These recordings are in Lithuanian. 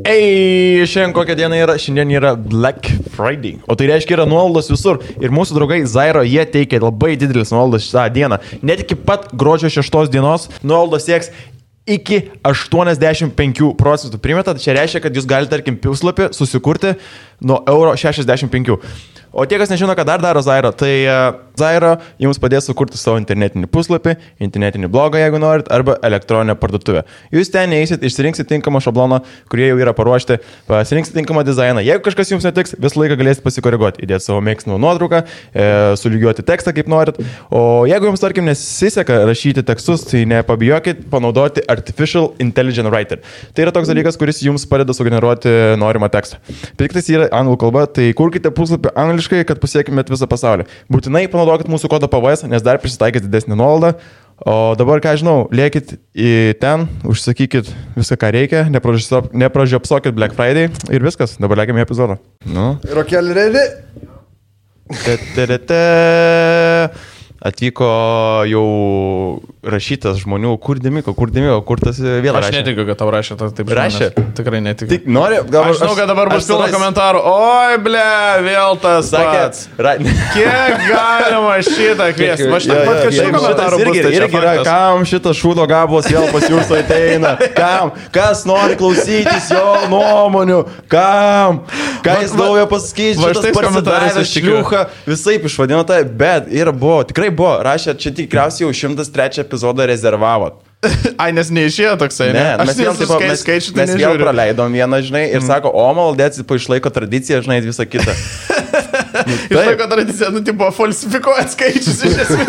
Šiandien kokia diena yra? Šiandien yra Black Friday. O tai reiškia yra nuolaidos visur. Ir mūsų draugai Zairo, jie teikia labai didelis nuolaidas šitą dieną. Net iki pat gruodžio 6 dienos nuolaidos sieks iki 85%. Primeta, čia reiškia, kad jūs galite, tarkim, puslapį susikurti nuo €65. O tie, kas nežino, ką dar daro Zairo, tai Zairo jums padės sukurti savo internetinį puslapį, internetinį blogą, jeigu norit, arba elektroninę parduotuvę. Jūs ten neįsit, išsirinksit tinkamą šabloną, kurie jau yra paruošti, pasirinksit tinkamą dizainą. Jeigu kažkas jums netiks, visą laiką galėsit pasikoreguoti, įdėti savo mėgstamą nuotrauką, sulygiuoti tekstą, kaip norit. O jeigu jums, tarkim, nesiseka rašyti tekstus, tai nepabijokit panaudoti Artificial Intelligent Writer. Tai yra toks dalykas, kuris jums padeda sugeneruoti norimą tekstą. Tik tai yra anglų kalba, tai kurkite puslapį angliškai, kad pasiekimėt visą pasaulį. Būtinai panaudokit mūsų kodą PVS, nes dar prisitaikys didesnį nuolaidą. O dabar, ką žinau, liekit į ten, užsakykit viską, ką reikia, nepražiopsokit Black Friday ir viskas. Dabar liekime į epizodą. Nu. Rokelį ready? Atvyko jau rašytas žmonių, kur Dimiko, kur tas vėl rašė. Aš netikiu, kad tau rašė, taip rašė. Tikrai netikiu. Tik nori, aš žinau, kad dabar bus pilna komentarų. Oi, ble, vėl tas pats. Kiek galima šitą kviesti? Aš taip pat kažkaip komentarų bus. Irgi yra, kam šitas šūdo gabalas vėl pas jūs ateina? Kam? Kas nori klausytis jo nuomonių? Kam? Ką jis naujo pasakys? Šitas parsidavęs šliucha. Visaip išvadino tai, bet ir buvo, tikrai buvo, rašė, čia tikriausiai jau 103 epizodą rezervavot. Ai, nes neišėjo toksai, ne? Mes vėl praleidom vieną, žinai, ir sako, o maldėts, išlaiko tradiciją, žinai, visą kitą. Išlaiko tradiciją, tipo, falsifikuoja skaičius iš esmės.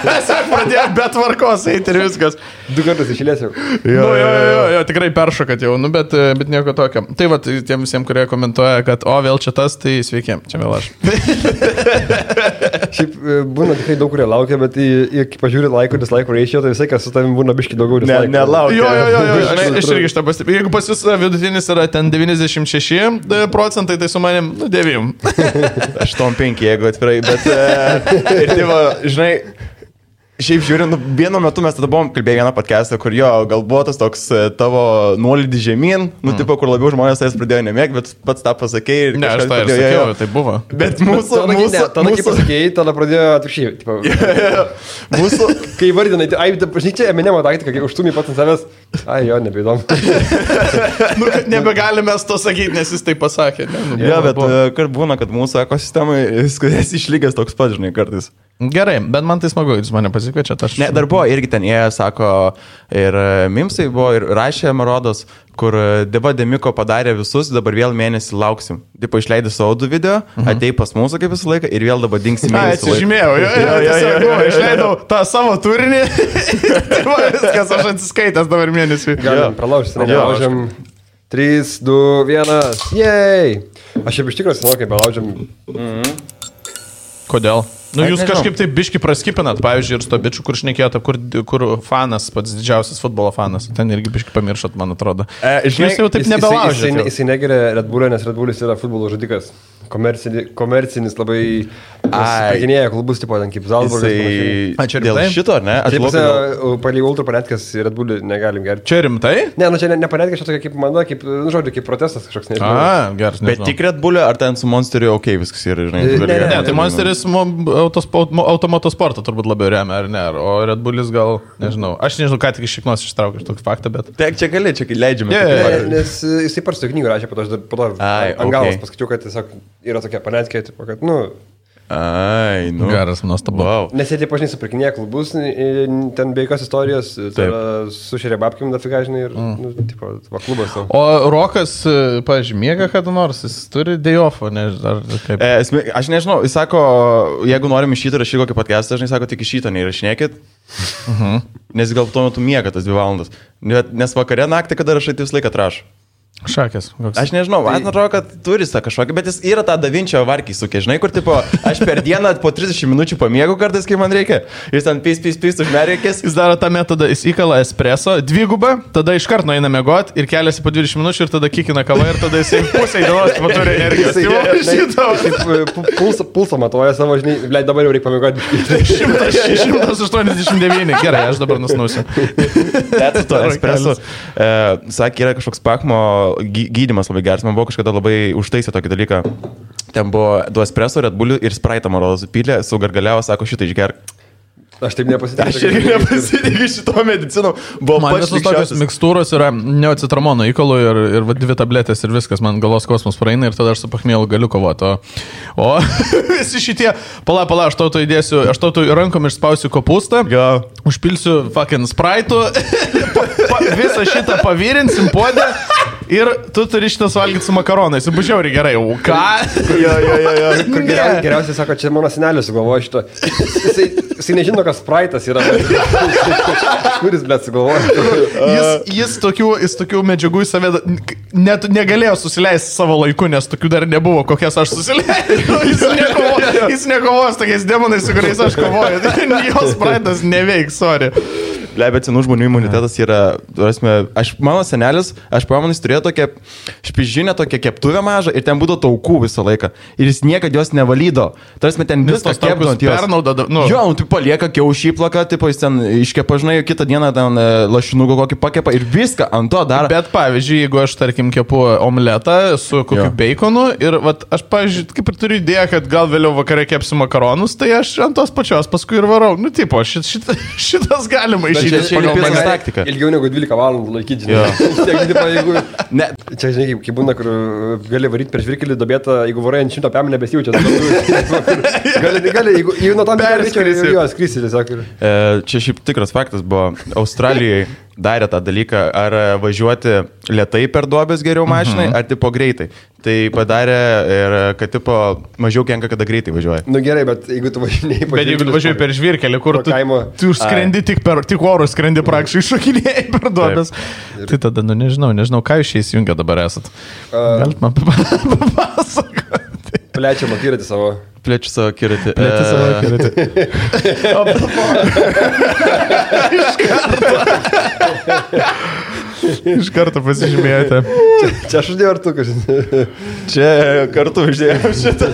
Tiesiog pradėjo be tvarkos eiti ir viskas. 2 kartus išėlės jau. Jo, tikrai peršokat jau, bet nieko tokio. Tai va, tiem visiems, kurie komentuoja, kad o, vėl čia tas, tai sveiki, čia vėl aš. Šiaip būna tikrai daug, kurie laukia, bet kai pažiūri laikų, dislaikų ratio, tai visai, kas su tavim būna biški daugiau dislaikų. Nelaukia. Jo, aš irgi šitą pastebėjau. Jeigu pas jūs vidutinis yra ten 96%, tai su manim 9. 8-5, jeigu atvirai, bet ir tai va, žinai, šiaip žiūrint, vienu metu mes tada buvom kalbėję vieną podcastą, kur jo, gal buvo tas toks tavo nuolydį žemyn, tipo, kur labiau žmonės tais pradėjo nemėgti, bet pats tą pasakėjai. Ne, aš tą ir sakiau, tai buvo. Bet mūsų... Tada kai pasakėjai, tada pradėjo atvirkščiai. Mūsų... Kai vardinai, ai, žinai, čia Eminemo taktika, kai užtumį pats ant savęs, ai jo, nebeįdomu. Nebegalime to sakyti, nes jis tai pasakė. Jo, bet kart būna, kad mūsų ekosistemai viskas išlygęs toks pats, žinai, kartais. Gerai, bet man tai smagu, jūs mane pasikviečiat. Ne, dar buvo irgi ten jie, sako, ir Mimsai buvo, ir rašė Marodos, kur Deva Demiko padarė visus, dabar vėl mėnesį lauksim. Tipo, išleidė savo 2 video, atei pas mūsų kaip visą laiką ir vėl dabar dingsi mėnesį. Atsižymėjau, išleidau tą savo turinį. Viskas, aš atsiskaitęs dabar mėnesį. Galim pralaužti, nelaužiam. 3, 2, 1, jej! Aš jau iš tikrųjų senau, kai belaužiam. Kodėl? Nu, jūs kažkaip taip biški praskipinat, pavyzdžiui, ir su to bičiu, kur šnekėjote, kur fanas, pats didžiausias futbolo fanas. Ten irgi biški pamiršot, man atrodo. Jūs jau taip nebelaužėte. Jisai negeria Red Bull'o, nes Red Bull'is yra futbolo žudikas. Komercinis labai paginėja klubus, tipo, ten kaip Zalzburgas. Čia dėl šito, ne? Palei ultra panetkas Red Bull'į negalim gerti. Čia rimtai? Ne, nu čia ne panetkas, čia tokia kaip mano, kaip, nu žodžiu, kaip protestas kažkoks, nežinau. Geras, bet tik Red Bull'io, ar ten su Monsteriu, okei, viskas yra, žinai. Ne, tai Monsteris automotosportą turbūt labiau remia, ar ne? O Red Bull'is gal, nežinau. Aš nežinau, ką tik iš šiknos ištraukiu tokį faktą, bet... Taip, čia gali, čia leidžiame. Nes jisai parsto knygų rašė, po to ant galos paskaičiau, kad tiesiog yra tokia panetkė, tipo, kad, nu... Ai, nu. Geras, nuostabu. Wow. Nes jie, tipo, žinai, supirkinėja klubus, ten be jokios istorijos, sušėrė babkim dafiga, žinai, ir, nu, tipo, klubas. O Rokas, pavyzdžiui, miega kada nors, jis turi day-off'o, ar kaip? Aš nežinau, jis sako, jeigu norim iš šito rašyti kokį podcastą, žinai, sako, tik iš šito neįrašinėkit, nes gal tuo metu miega tas 2 valandas. Nes vakare naktį, kada rašai, tai vis laiką atrašo. Šakės. Aš nežinau, man atrodo, kad turi tą kažkokį, bet jis yra tą Davinčio varkį sukė, žinai, kur tipo, aš per dieną po 30 minučių pamiegu kartais, kai man reikia. Jis ten pys užmerkės. Jis daro tą metodą, jis įkala espreso, 2, tada iš karto eina miegot ir keliasi po 20 minučių ir tada kikina kavą ir tada jisai pusę dienos turi energijos. Pulsą matuoja savo, žinai, leid dabar jau reikia pamiegoti. 189, gerai, aš dabar nusnausiu. Espreso, sakė, yra kažkoks Pakmo gydymas labai geras, man buvo kažkada labai užtaisę tokį dalyką. Ten buvo 2 espresso, Red Bull ir Sprite, man rodos, supylė, sugargaliavo, sako, šitą išgerk. Aš taip nepasitikiu. Aš irgi nepasitikiu šito medicino. Man visos tokios mikstūros yra neocitramono įkalų ir 2 tabletės ir viskas, man galos kosmos praeina ir tada aš su pachmielu galiu kovoti. O visi šitie, pala, aš tau įdėsiu, aš tau rankom išspausiu kopūstą, užpilsiu fucking Sprite'u, visą šitą pavirinsim puodę. Ir tu turi šitas valgyti su makaronais. Ir bužiauri gerai. O ką? Jo. Geriausiai sako, čia mano senelis sugalvoja šito. Jisai nežino, kas Sprite'as yra. Kuris, blėt, sugalvoja. Jis tokių medžiagų į save net negalėjo susileisti savo laiku, nes tokių dar nebuvo, kokias aš susileidžiu. Jis nekovoja su tokiais demonais, su kuriais aš kovoju. Jos Sprite'as neveiks, sorry. Bet senų žmonių imunitetas yra, mano senelis, aš pamenu, jis turėjo tokią špižinę, tokią keptuvę mažą ir ten būdavo taukų visą laiką. Ir jis niekada jos nevalydo. Tarsi ten viską kepdant jos. Jo, tu palieka kiaušį plaką, tipo jis ten iškepa, žinai, kitą dieną ten lašinukų kokį pakepa ir viską ant to daro. Bet pavyzdžiui, jeigu aš, tarkim, kepu omletą su kokiu baconu ir aš, pavyzdžiui, kaip ir turiu idėją, kad gal vėliau vakare kepsiu makaronus, tai aš ant tos pačios paskui ir varau. Nu, tipo, šitas galima taktika. Ilgiau negu 12 valandų laikyti. Čia, žinai, kaip būna, kur gali varyti per žvirkelį dobėtą, jeigu varai ant 100 pėmų nebesijaučia. Gali, jeigu nuo tam skrisi tiesiog. Čia šiaip tikras faktas buvo. Australijai darė tą dalyką, ar važiuoti lėtai per duobės geriau mašinai, ar tipo greitai. Tai padarė ir kad tipo mažiau kenka, kada greitai važiuoja. Nu gerai, bet jeigu tu važiuoji per žvirkelį, kur tu skrendi tik orų, skrendi praktiškai šokinėjai per duobės. Tai tada, nežinau, ką jūs šiais jungia dabar esat. Galit man papasakoti. Plečiam akiratį savo. Plečiu savo akiratį. Iš karto pasižymėjote. Čia aš uždėjau ar tu kažkaip? Čia kartu uždėjau šitą.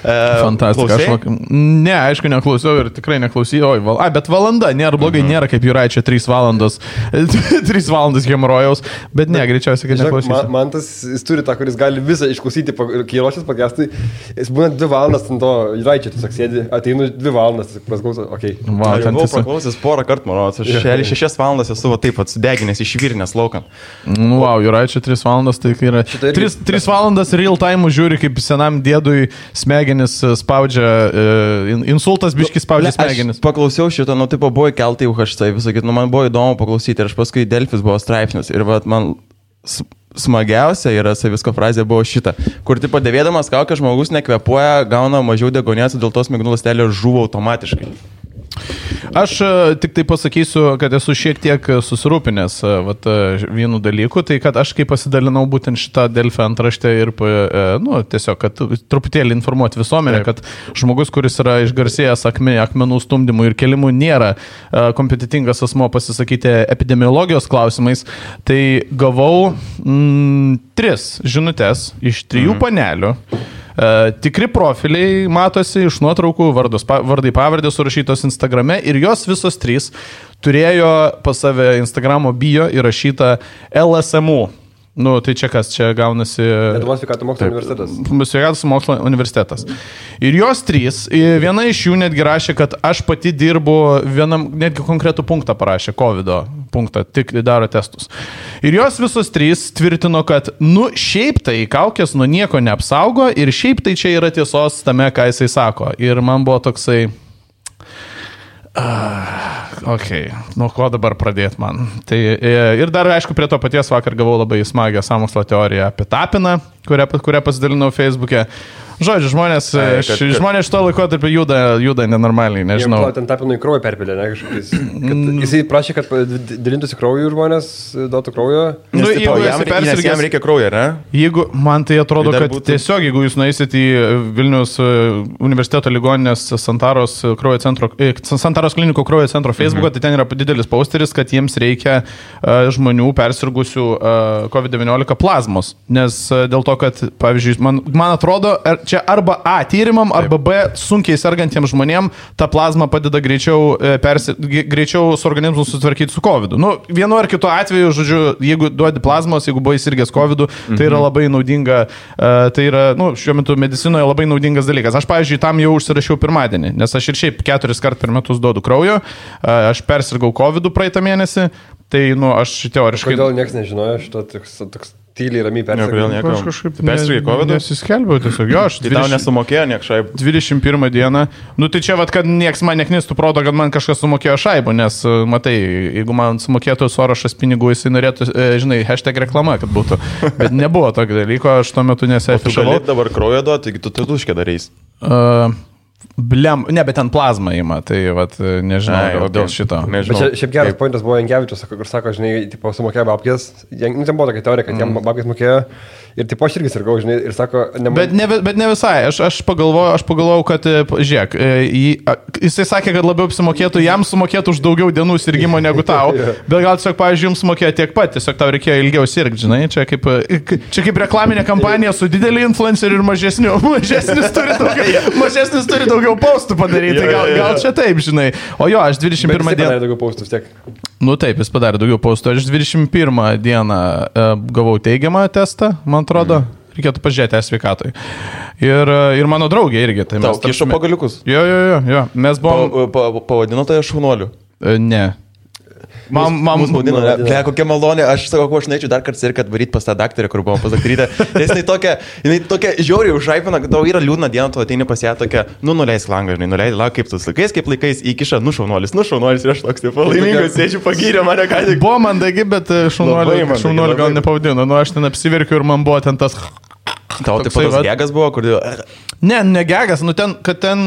Fantastika. Ne, aišku, neklausiau ir tikrai neklausiau. Bet valanda, nėra blogai, nėra kaip Juraičio 3 valandos. 3 valandas hemorojaus, bet ne, greičiausiai, kad neklausysiu. Man tas, jis turi tą, kuris gali visą išklausyti, kai ruošias podcastui. Jis būna 2 valandas ant to Juraičio, tiesiog sėdi, ateinu 2 valandas, prasklauso, okei. Aš buvau praklausęs porą kartų, manau, aš 6 valandas esu taip atsudeginęs iš virnės laukan. Wow, Juraičio 3 valandas, tai yra 3 valandas real time žiūri, kaip senam dėdui smegenis spaudžia, insultas biškis spaudžia smegenis. Aš paklausiau šito, tipo buvo įkelta į UHC, visakyti, man buvo įdomu paklausyti ir aš paskui Delfis buvo straipsnis ir man smagiausia yra savisko frazė buvo šita, kur tipo dėvėdamas kaukę žmogus nekvepuoja, gauna mažiau degonės, dėl to smegenų ląstelė žuvo automatiškai. Aš tik tai pasakysiu, kad esu šiek tiek susirūpinęs vienu dalyku, tai kad aš kai pasidalinau būtent šitą Delfį antraštę ir tiesiog, kad truputėlį informuoti visuomenę, kad žmogus, kuris yra išgarsėjęs akmenų stumdymų ir kelimų, nėra kompetitingas asmo pasisakyti epidemiologijos klausimais, tai gavau 3 žinutes iš 3 panelių. Tikri profiliai matosi iš nuotraukų, vardai pavardės surašytos Instagrame ir jos visos 3 turėjo pas save Instagramo bio įrašytą LSMU. Nu, tai čia kas, čia gaunasi... Lietuvos sveikatos mokslo universitetas. Sveikatos mokslo universitetas. Ir jos 3, viena iš jų netgi rašė, kad aš pati dirbu vienam, netgi konkretų punktą parašė, COVID punktą, tik daro testus. Ir jos visos 3 tvirtino, kad, šiaip tai kaukės nuo nieko neapsaugo ir šiaip tai čia yra tiesos tame, ką jisai sako. Ir man buvo toksai... nuo ko dabar pradėti man. Tai, ir dar, aišku, prie to paties vakar gavau labai smagią sąmokslo teoriją apie Tapiną, kurią pasidalinau Facebook'e. Žodžiu, žmonės šito laikotarpio juda nenormaliai, nežinau. Ten Tapinui kraują perpilė, ne kažkokiais. Jisai prašė, kad dalintųsi krauju žmonės, duotų kraujo. Jam reikia kraujo, ne? Jeigu, man tai atrodo, kad tiesiog, jeigu jūs nueisit į Vilniaus universiteto ligoninės Santaros klinikų kraujo centro Facebook'o, tai ten yra didelis posteris, kad jiems reikia žmonių persirgusių COVID-19 plazmos. Nes dėl to, kad, pavyzdžiui, man atrodo, čia arba A tyrimam, arba B sunkiai sergantiems žmonėms ta plazma padeda greičiau su organizmu sutvarkyti su COVID. Nu, vienu ar kitu atveju, žodžiu, jeigu duodi plazmos, jeigu buvai sirgęs COVID, tai yra labai naudinga, tai yra, nu, šiuo metu medicinoje labai naudingas dalykas. Aš, pavyzdžiui, tam jau užsirašiau pirmadienį, nes aš ir šiaip 4 kartus per metus duodu kraujo, aš persirgau COVID praeitą mėnesį, tai, nu, aš teoriškai... Kodėl niekas nežinojo šito toks tyliai ramiai persirgau? Aš kažkaip persirgai COVID? Nesiskelbiau tiesiog, jo, aš... Tai tau nesumokėjo niek šaibų? 21 dieną. Nu, tai čia, vat, kad nieks man neknistų proto, kad man kažkas sumokėjo šaibų, nes, matai, jeigu man sumokėtų Sorošas pinigų, jisai norėtų, žinai, hashtag reklama, kad būtų. Bet nebuvo tokio dalyko, aš tuo metu nesiafišavau. Tu gali dabar kraujo duoti, taigi tu tuškę darys. Ne, bet ten plazma įma, tai vat, nežinau, dėl šito. Bet šiaip geras pointas buvo Jankevičius, kur sako, žinai, tipo, sumokėjo babkės, ten buvo tokia teorija, kad jam babkės mokėjo ir tipo aš irgi sirgau, žinai, ir sako, bet ne visai, aš pagalvojau, kad, žiūrėk, jisai sakė, kad labiau apsimokėtų, jam sumokėtų už daugiau dienų sirgimo negu tau, bet gal tiesiog, pavyzdžiui, jums sumokėjo tiek pat, tiesiog tau reikėjo ilgiau sirgti, žinai, čia kaip reklaminė kampanija su dideliu influenceriu ir mažesnis turi daugiau postų padaryti, gal čia taip, žinai. O jo, aš 21 dieną... padarė daugiau postų vis tiek. Nu taip, jis padarė daugiau postų. Aš 21 dieną gavau teigiamą testą, man atrodo. Reikėtų pažiūrėti sveikatoj. Ir mano draugė irgi. Tai tau kišo pagaliukus? Jo. Mes buvom... Pavadino tai šaunuoliu? Ne. Mums maudino, kokia malonė, aš sakau, aš norėčiau dar kartą ir kad varyti pas tą daktarę, kur buvom pas daktarytę, nes jinai tokia žiauriai užaipina, kad tau yra liūdna diena, tu ateini pas ją tokia, nuleisk langą, žinai, nuleidai langą, kaip laikais, įkiša, šaunuolis, ir aš toks, taip, laimingas, sėdžiu, pagyrė mane ką tik. Buvo mandagi, bet šaunuolį gal nepavadino, nu aš ten apsiverkiu ir man buvo ten tas... Tau taip pat gegas buvo, kur... Ne gegas, nu ten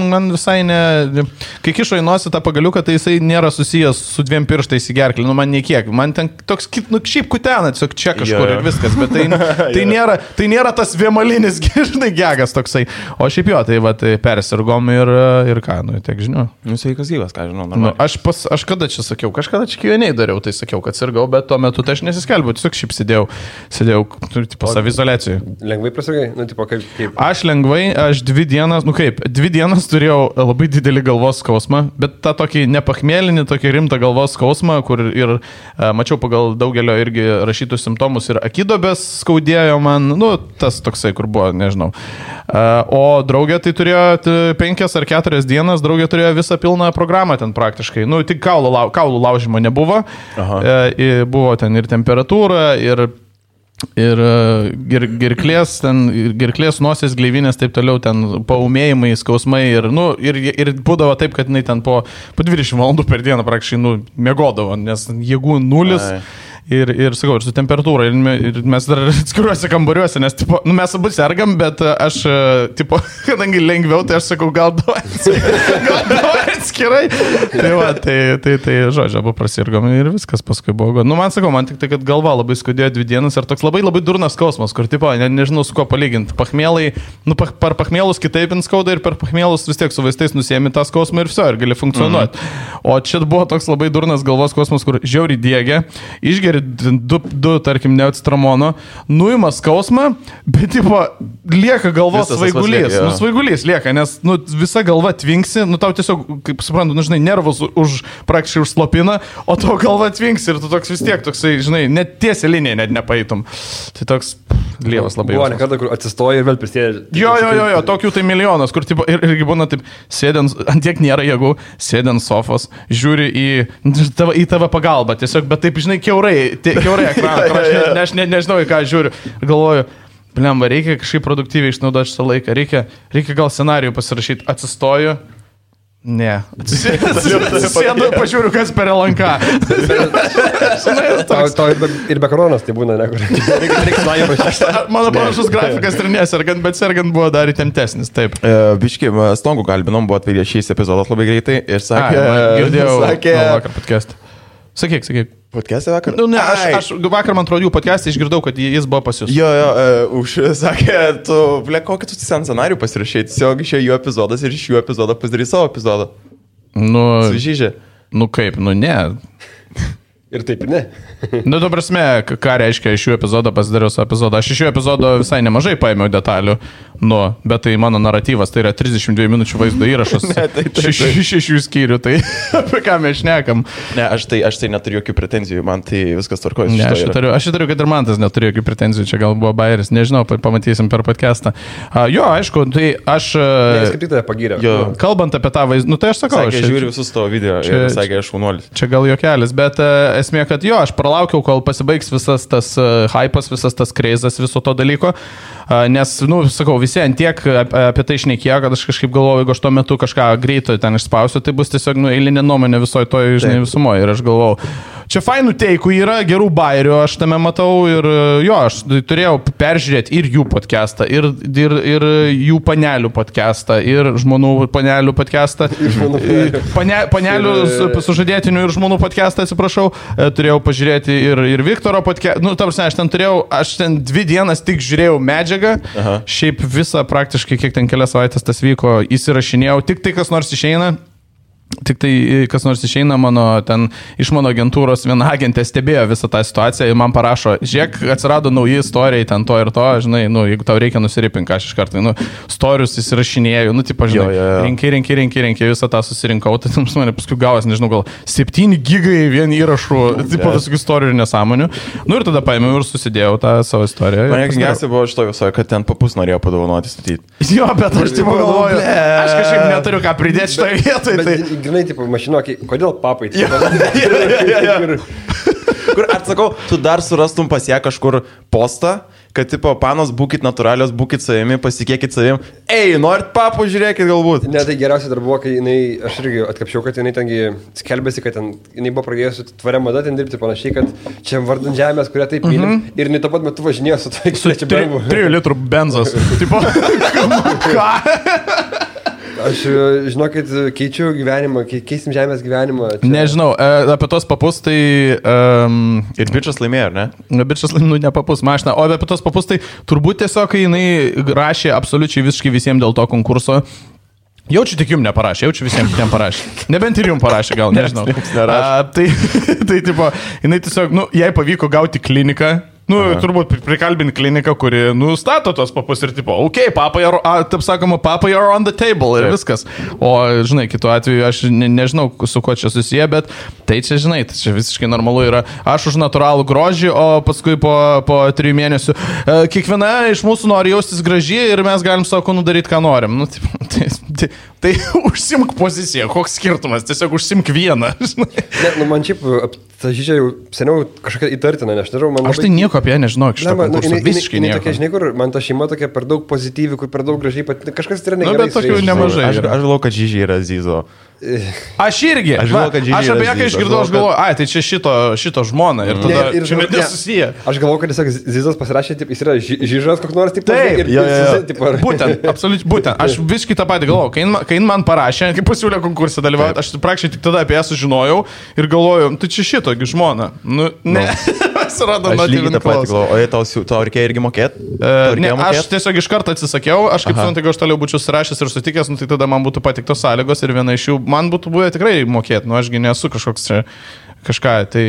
man visai ne... Kai kišo į nosį tą pagaliuką, tai jisai nėra susijęs su 2 pirštais į gerklį, nu man niekiek. Man ten toks, nu šiaip kutena, tiesiog čia kažkur ir viskas, bet tai nėra tas vienmalinis, žinai, gegas toksai. O šiaip jo, tai va, persirgom ir ką, nu tiek žinau. Nu sveikas gyvas, ką žinau. Nu, aš kada čia sakiau, kažkada čia Q&A dariau, tai sakiau, kad sirgau, bet tuo metu tai aš nesiskelbiau, tiesiog šiaip sėdėjau tipo savizoliacijoje. Lengvai prasirgai? Nu, tipo, kaip? Aš lengvai, aš 2 dienas, 2 dienas turėjau labai didelį galvos skausmą, bet tą tokį nepachmėlinį, tokį rimtą galvos skausmą, kur ir mačiau pagal daugelio irgi rašytų simptomus ir akidobės skaudėjo man, nu, tas toksai, kur buvo, nežinau. O draugė tai turėjo 5 ar 4 dienas, draugė turėjo visą pilną programą ten praktiškai, nu, tik kaulų laužimo nebuvo, buvo ten ir temperatūra, ir gerklės, nosies, gleivinės, taip toliau, ten paumėjimai, skausmai ir būdavo taip, kad jinai ten po 20 valandų per dieną praktiškai, miegodavo, nes jėgų nulis. Ir sakau, ir su temperatūra, ir mes dar atskiruose kambariuose, nes tipo, mes abu sergam, bet aš, tipo, kadangi lengviau, tai aš sakau, gal duoja atskirai. Tai žodžiu, abu prasirgom ir viskas paskui buvo. Nu, man sakau, man tik tai, kad galva labai skaudėjo 2 dienas ir toks labai durnas skausmas, kur, tipo, nežinau su kuo palyginti. Pachmėlai, per pachmėlus kitaip skauda ir per pachmėlus vis tiek su vaistais nusiemi tą skausmą ir viso, ir gali funkcionuoti. O čia buvo toks labai durnas galvos skausmas, kur žiauriai diegia, išgeri 2 tarkim, neacitramono, nuima skausmą, bet, tipo, lieka galvos svaigulys. Svaigulys lieka, nes, visa galva tvinksi, tau tiesiog, kaip suprantu, žinai, nervus praktiškai užslopina, o tavo galva tvinksi ir tu toks vis tiek, toksai, žinai, net tiesią liniją net nepaitum. Tai toks lievas labai. Buvo nekada, kur atsistoja ir vėl prisėdė. Jo, tokių tai milijonas, kur, tipo, irgi būna taip, sėdint, antiek nėra jėgų, sėdint sofos, žiūri į tavo pagalbą, tiesiog, bet taip, žinai, kiaurai ekraną, aš nežinau, į ką žiūriu, galvoju, blemba, reikia kažkaip produktyviai išnaudoti šitą laiką, reikia gal scenarijų pasirašyti, atsistoju, ne, atsisėdu, pažiūriu, kas per lanką. Tau ir be koronos tai būna, mano panašus grafikas ir nesergant, bet sergant buvo dar įtemptesnis, taip. Biški, Stongų kalbinom, buvo atvedė šis epizodas labai greitai ir sakė, vakar podcast'ą. Sakyk. Podcast'e vakar? Nu, ne, aš vakar, man atrodo, jų podcast'e išgirdau, kad jis buvo pas jūs. Jo, sakė, kokį tu scenarijų pasirašai, tiesiog išėjo jų epizodas ir iš jų epizodo pasidarys savo epizodą. Sužyžė. Nu kaip, ne. Ir taip, ne. Nu, tu prasme, ką reiškia iš šių epizodų pasidariau su epizodu. Aš iš šių epizodų visai nemažai paėmiau detalių, bet tai mano naratyvas, tai yra 32 minučių vaizdo įrašas. Šešių skyrių, tai apie ką mes šnekam. Ne, aš tai neturiu jokių pretenzijų, man tai viskas tvarkoja. Ne, aš turiu, kad ir man tas neturiu jokių pretenzijų, čia gal buvo bairis, nežinau, pamatysim per podcastą. Jo, aišku, tai aš... Jis kaip tik tave pagyrė. Kalbant apie tą vaizdą, nu tai aš sakau. Sakė, žiūriu visus tavo video ir sakė, aš šaunuolis. Čia gal juokelis, bet esmė, kad jo, aš pralaukiau, kol pasibaigs visas tas hypas, visas tas kreizas viso to dalyko, nes, nu, sakau, visi antiek apie tai šnekėjo, kad aš kažkaip galvoju, jeigu aš tuo metu kažką greito ten išspausiu, tai bus tiesiog, nu, eilinė nuomonė visoje toje, žinai, visumoje. Ir aš galvojau, čia fainų teikų yra, gerų bairių, aš tame matau ir jo, aš turėjau peržiūrėti ir jų podcastą, ir jų panelių podcastą, ir žmonų panelių podcastą, panelių sužadėtinių ir žmonų podcastą, atsiprašau, turėjau pažiūrėti ir Viktoro podcastą, nu, tarsi, aš ten 2 dienas tik žiūrėjau medžiagą, šiaip visą praktiškai, kiek ten kelias savaitės tas vyko, įsirašinėjau, tik tai kas nors išeina. Tik tai, kas nors išeina iš mano agentūros, viena agentė stebėjo visą tą situaciją ir man parašo, žiūrėk, atsirado nauji istorijai, ten to ir to, žinai, nu, jeigu tau reikia nusiripinti, aš iš karto, nu, storius įsirašinėjau, nu, tipo, žinai, rinkai, visą tą susirinkau, tai tam mane paskui gavas, nežinau, gal 7 gigai vien įrašų, tipo, visokių istorijų ir nesąmonių. Nu, ir tada paėmiau ir susidėjau tą savo istoriją. Man geriausia buvo šito visoje, kad ten papus norėjo padovanoti statyti. Jo, bet aš tipo galvoju, aš kažkaip neturiu ką pridėti šitoje vietoje. Tai... Grinai, tipo, mašinokį, kodėl papai? Kur atsakau, tu dar surastum pas ją kažkur postą, kad, tipo, panos, būkit natūralios, būkit savimi, pasikėkit savim. Ei, norit papų, žiūrėkit galbūt. Ne, tai geriausia dar buvo, kai aš irgi atkapšiau, kad jinai tengi skelbėsi, kad jinai buvo pradėjusi tvaria mada ten dirbti panašiai, kad čia vardan žemės, kurią taip mylim. Ir jinai tuo pat metu važinėjo su to, su 3 litrų benzas. Tipo, ką? Aš, žinokit, keičiu gyvenimą, keisim žemės gyvenimą. Čia... Nežinau, apie tos papus tai... Ir bičias laimėjo, ar ne? Bičias laimėjo, ne papus mašiną, o apie tos papus tai turbūt tiesiog, kai jinai rašė absoliučiai visiškai visiems dėl to konkurso. Jaučiu tik jums neparašė, jaučiu visiems kitiems parašė. Nebent ir jums parašė, gal, nežinau. Tai tipo, jinai tiesiog, nu, jai pavyko gauti kliniką. Nu, turbūt prikalbinti kliniką, kuri nustato tos papus ir tipo, papai, taip sakoma, papai are on the table ir viskas. O, žinai, kitu atveju aš nežinau, su kuo čia susiję, bet tai čia, žinai, tai čia visiškai normalu yra. Aš už natūralų grožį, o paskui po 3 mėnesių kiekviena iš mūsų nori jaustis gražiai ir mes galim savo nudaryti, ką norim. Nu, tai užsimk poziciją, koks skirtumas, tiesiog užsimk vieną. Ne, nu, man šiaip, ta žydžia jau seniau kažkokia įtartina, aš nežinau, man... Aš tai nieko apie ją nežinau, iš to konkurso, visiškai nieko. Tokia, žinai, kur man ta šeima tokia per daug pozityvi, kur per daug gražiai, kažkas yra negerai. Na, bet tokių nemažai. Aš galvoju, kad žydžiai yra Zizo. Aš irgi. Aš apie ją, kai išgirdau, aš galvoju, tai čia šito žmona ir tada čia net nesusiję. Aš galvoju, kad tiesiog Zizas pasirašė, jis yra žyžas koks nors, taip. Būtent, absoliučiai, būtent. Aš visiškai tą patį galvoju. Kai man parašė, kai pasiūlė konkursą dalyvauti, aš praktiškai tik tada apie ją sužinojau ir galvoju, tai čia šitogi žmona. Nu, ne. Surado aš lygiai tą patį galvoju, o tau reikėjo irgi mokėti? Ne, aš tiesiog iš karto atsisakiau, aš kaip suprantu, jeigu aš toliau būčiau surašęs ir sutikęs, nu, tai tada man būtų patiktos sąlygos ir viena iš jų man būtų buvę tikrai mokėti, nu ašgi nesu kažkoks čia kažką, tai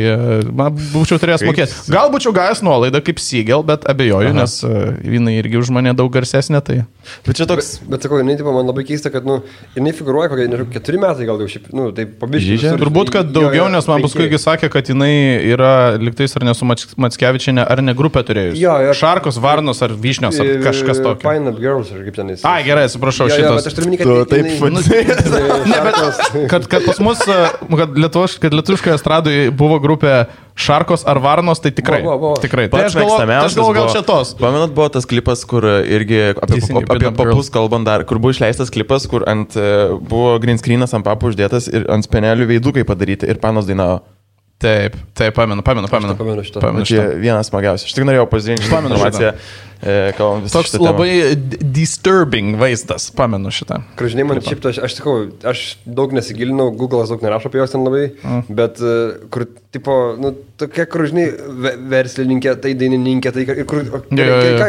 man būčiau turėjęs mokėti. Gal būčiau gavęs nuolaidą kaip Siegel, bet abejoju, nes jinai irgi už mane daug garsesnė, tai... Bet čia toks... Bet sakau, jinai, tipo, man labai keista, kad, nu, jinai figūruoja kokie, nežinau, 4 metai gal jau šiaip, nu, tai pabiškai. Turbūt, kad daugiau, nes man paskui sakė, kad jinai yra liktais ar nesu Mackevičienė, ar ne grupė turėjus. Jo. Šarkos, Varnos ar Vyšnios, ar kažkas tokio. Fine Up Girls, ar kaip ten jis. Ai, gerai, atsiprašau, šitos. Kad pas mus, kad lietuviškoje estradoje buvo grupė Šarkos ar Varnos, tai tikrai. Tikrai. Tai aš galvoju, gal šitos. Pamenat, buvo tas klipas, kur irgi apie papus kalbant dar, kur buvo išleistas klipas, kur buvo green screenas ant papų uždėtas ir ant spenelių veidukai padaryti ir panos dainavo. Taip, pamenu šitą. Čia vienas smagiausias. Aš tik norėjau pasidalinti šitą informaciją. Toks labai disturbing vaizdas, pamenu šitą. Žinai, man šiaip, aš sakau, aš daug nesigilinau, Google'as daug nerašo apie jos ten labai, bet kur, tipo, nu, tokia, kur, žinai, verslininkė, tai dainininkė, tai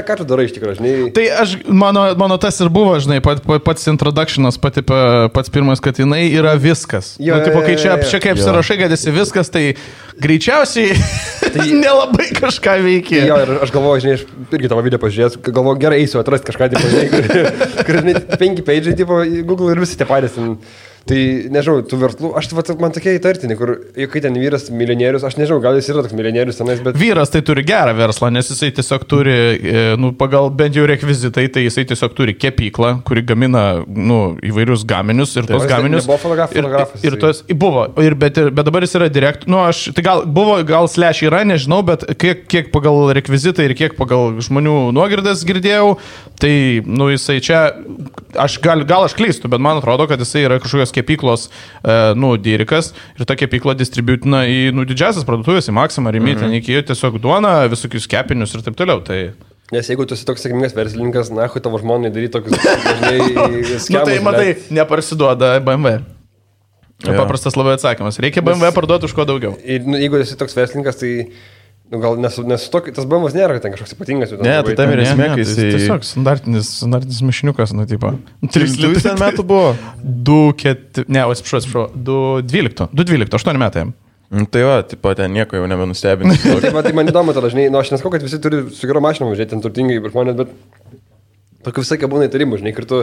ką tu darai iš tikrųjų, žinai? Tai mano tas ir buvo, žinai, pats introductionas, pats pirmas, kad jinai yra viskas. Kai čia kaip apsirašai, kad esi viskas, tai greičiausiai nelabai kažką veikia. Jo, ir aš galvoju, žinai, aš irgi tavo video pažiūrėjęs, galvoju, gerai eisiu atrasti kažką, kur, žinai, 5 paidžiai, Google ir visi tie patys. Tai, nežinau, tų verslų, man tokie įtartini, kur, kai ten vyras milijonierius, aš nežinau, gal jis yra toks milijonierius tenais, bet... Vyras tai turi gerą verslą, nes jisai tiesiog turi, pagal bent jau rekvizitai, tai jisai tiesiog turi kepyklą, kuri gamina, įvairius gaminius ir tos gaminius... Nebuvo fotografas. Ir tos, buvo, bet dabar jis yra tai gal slash yra, nežinau, bet kiek pagal rekvizitai ir kiek pagal žmonių nuogirdas girdėjau, tai, jisai čia, gal aš klystu, bet man atrodo, kad jisai yra kažkokios kepyklos, dyrikas ir ta kepykla distributina į, didžiasias parduotuvės, į Maximą, į Mytą, iki tiesiog duoną, visokius kepinius ir taip toliau. Tai... Nes jeigu tu esi toks sėkmingas verslininkas, nahui tavo žmonai daryti tokius, dažnai, skemus. Tai matai, neparsiduoda BMW. Paprastas labai atsakymas. Reikia BMW parduoti už ko daugiau. Ir jeigu esi toks verslininkas, tai... gal tas BMWs nėra, kad ten kažkoks ypatingas. Ne, tai tam ir esmė, kai jis... Tiesiog standartinis mišiniukas, tipo. 3 metų buvo. 2-4... Ne, atsiprašau, 2-12, 8 metai. Tai va, tipo, ten nieko jau nebenustebinti. Tai man įdomu, tada, žinai, aš nesakau, kad visi turi su gero mašinom važiuoti, ten turtingai žmonės, bet... Tokių visai būna įtarimų, žinai, ir tu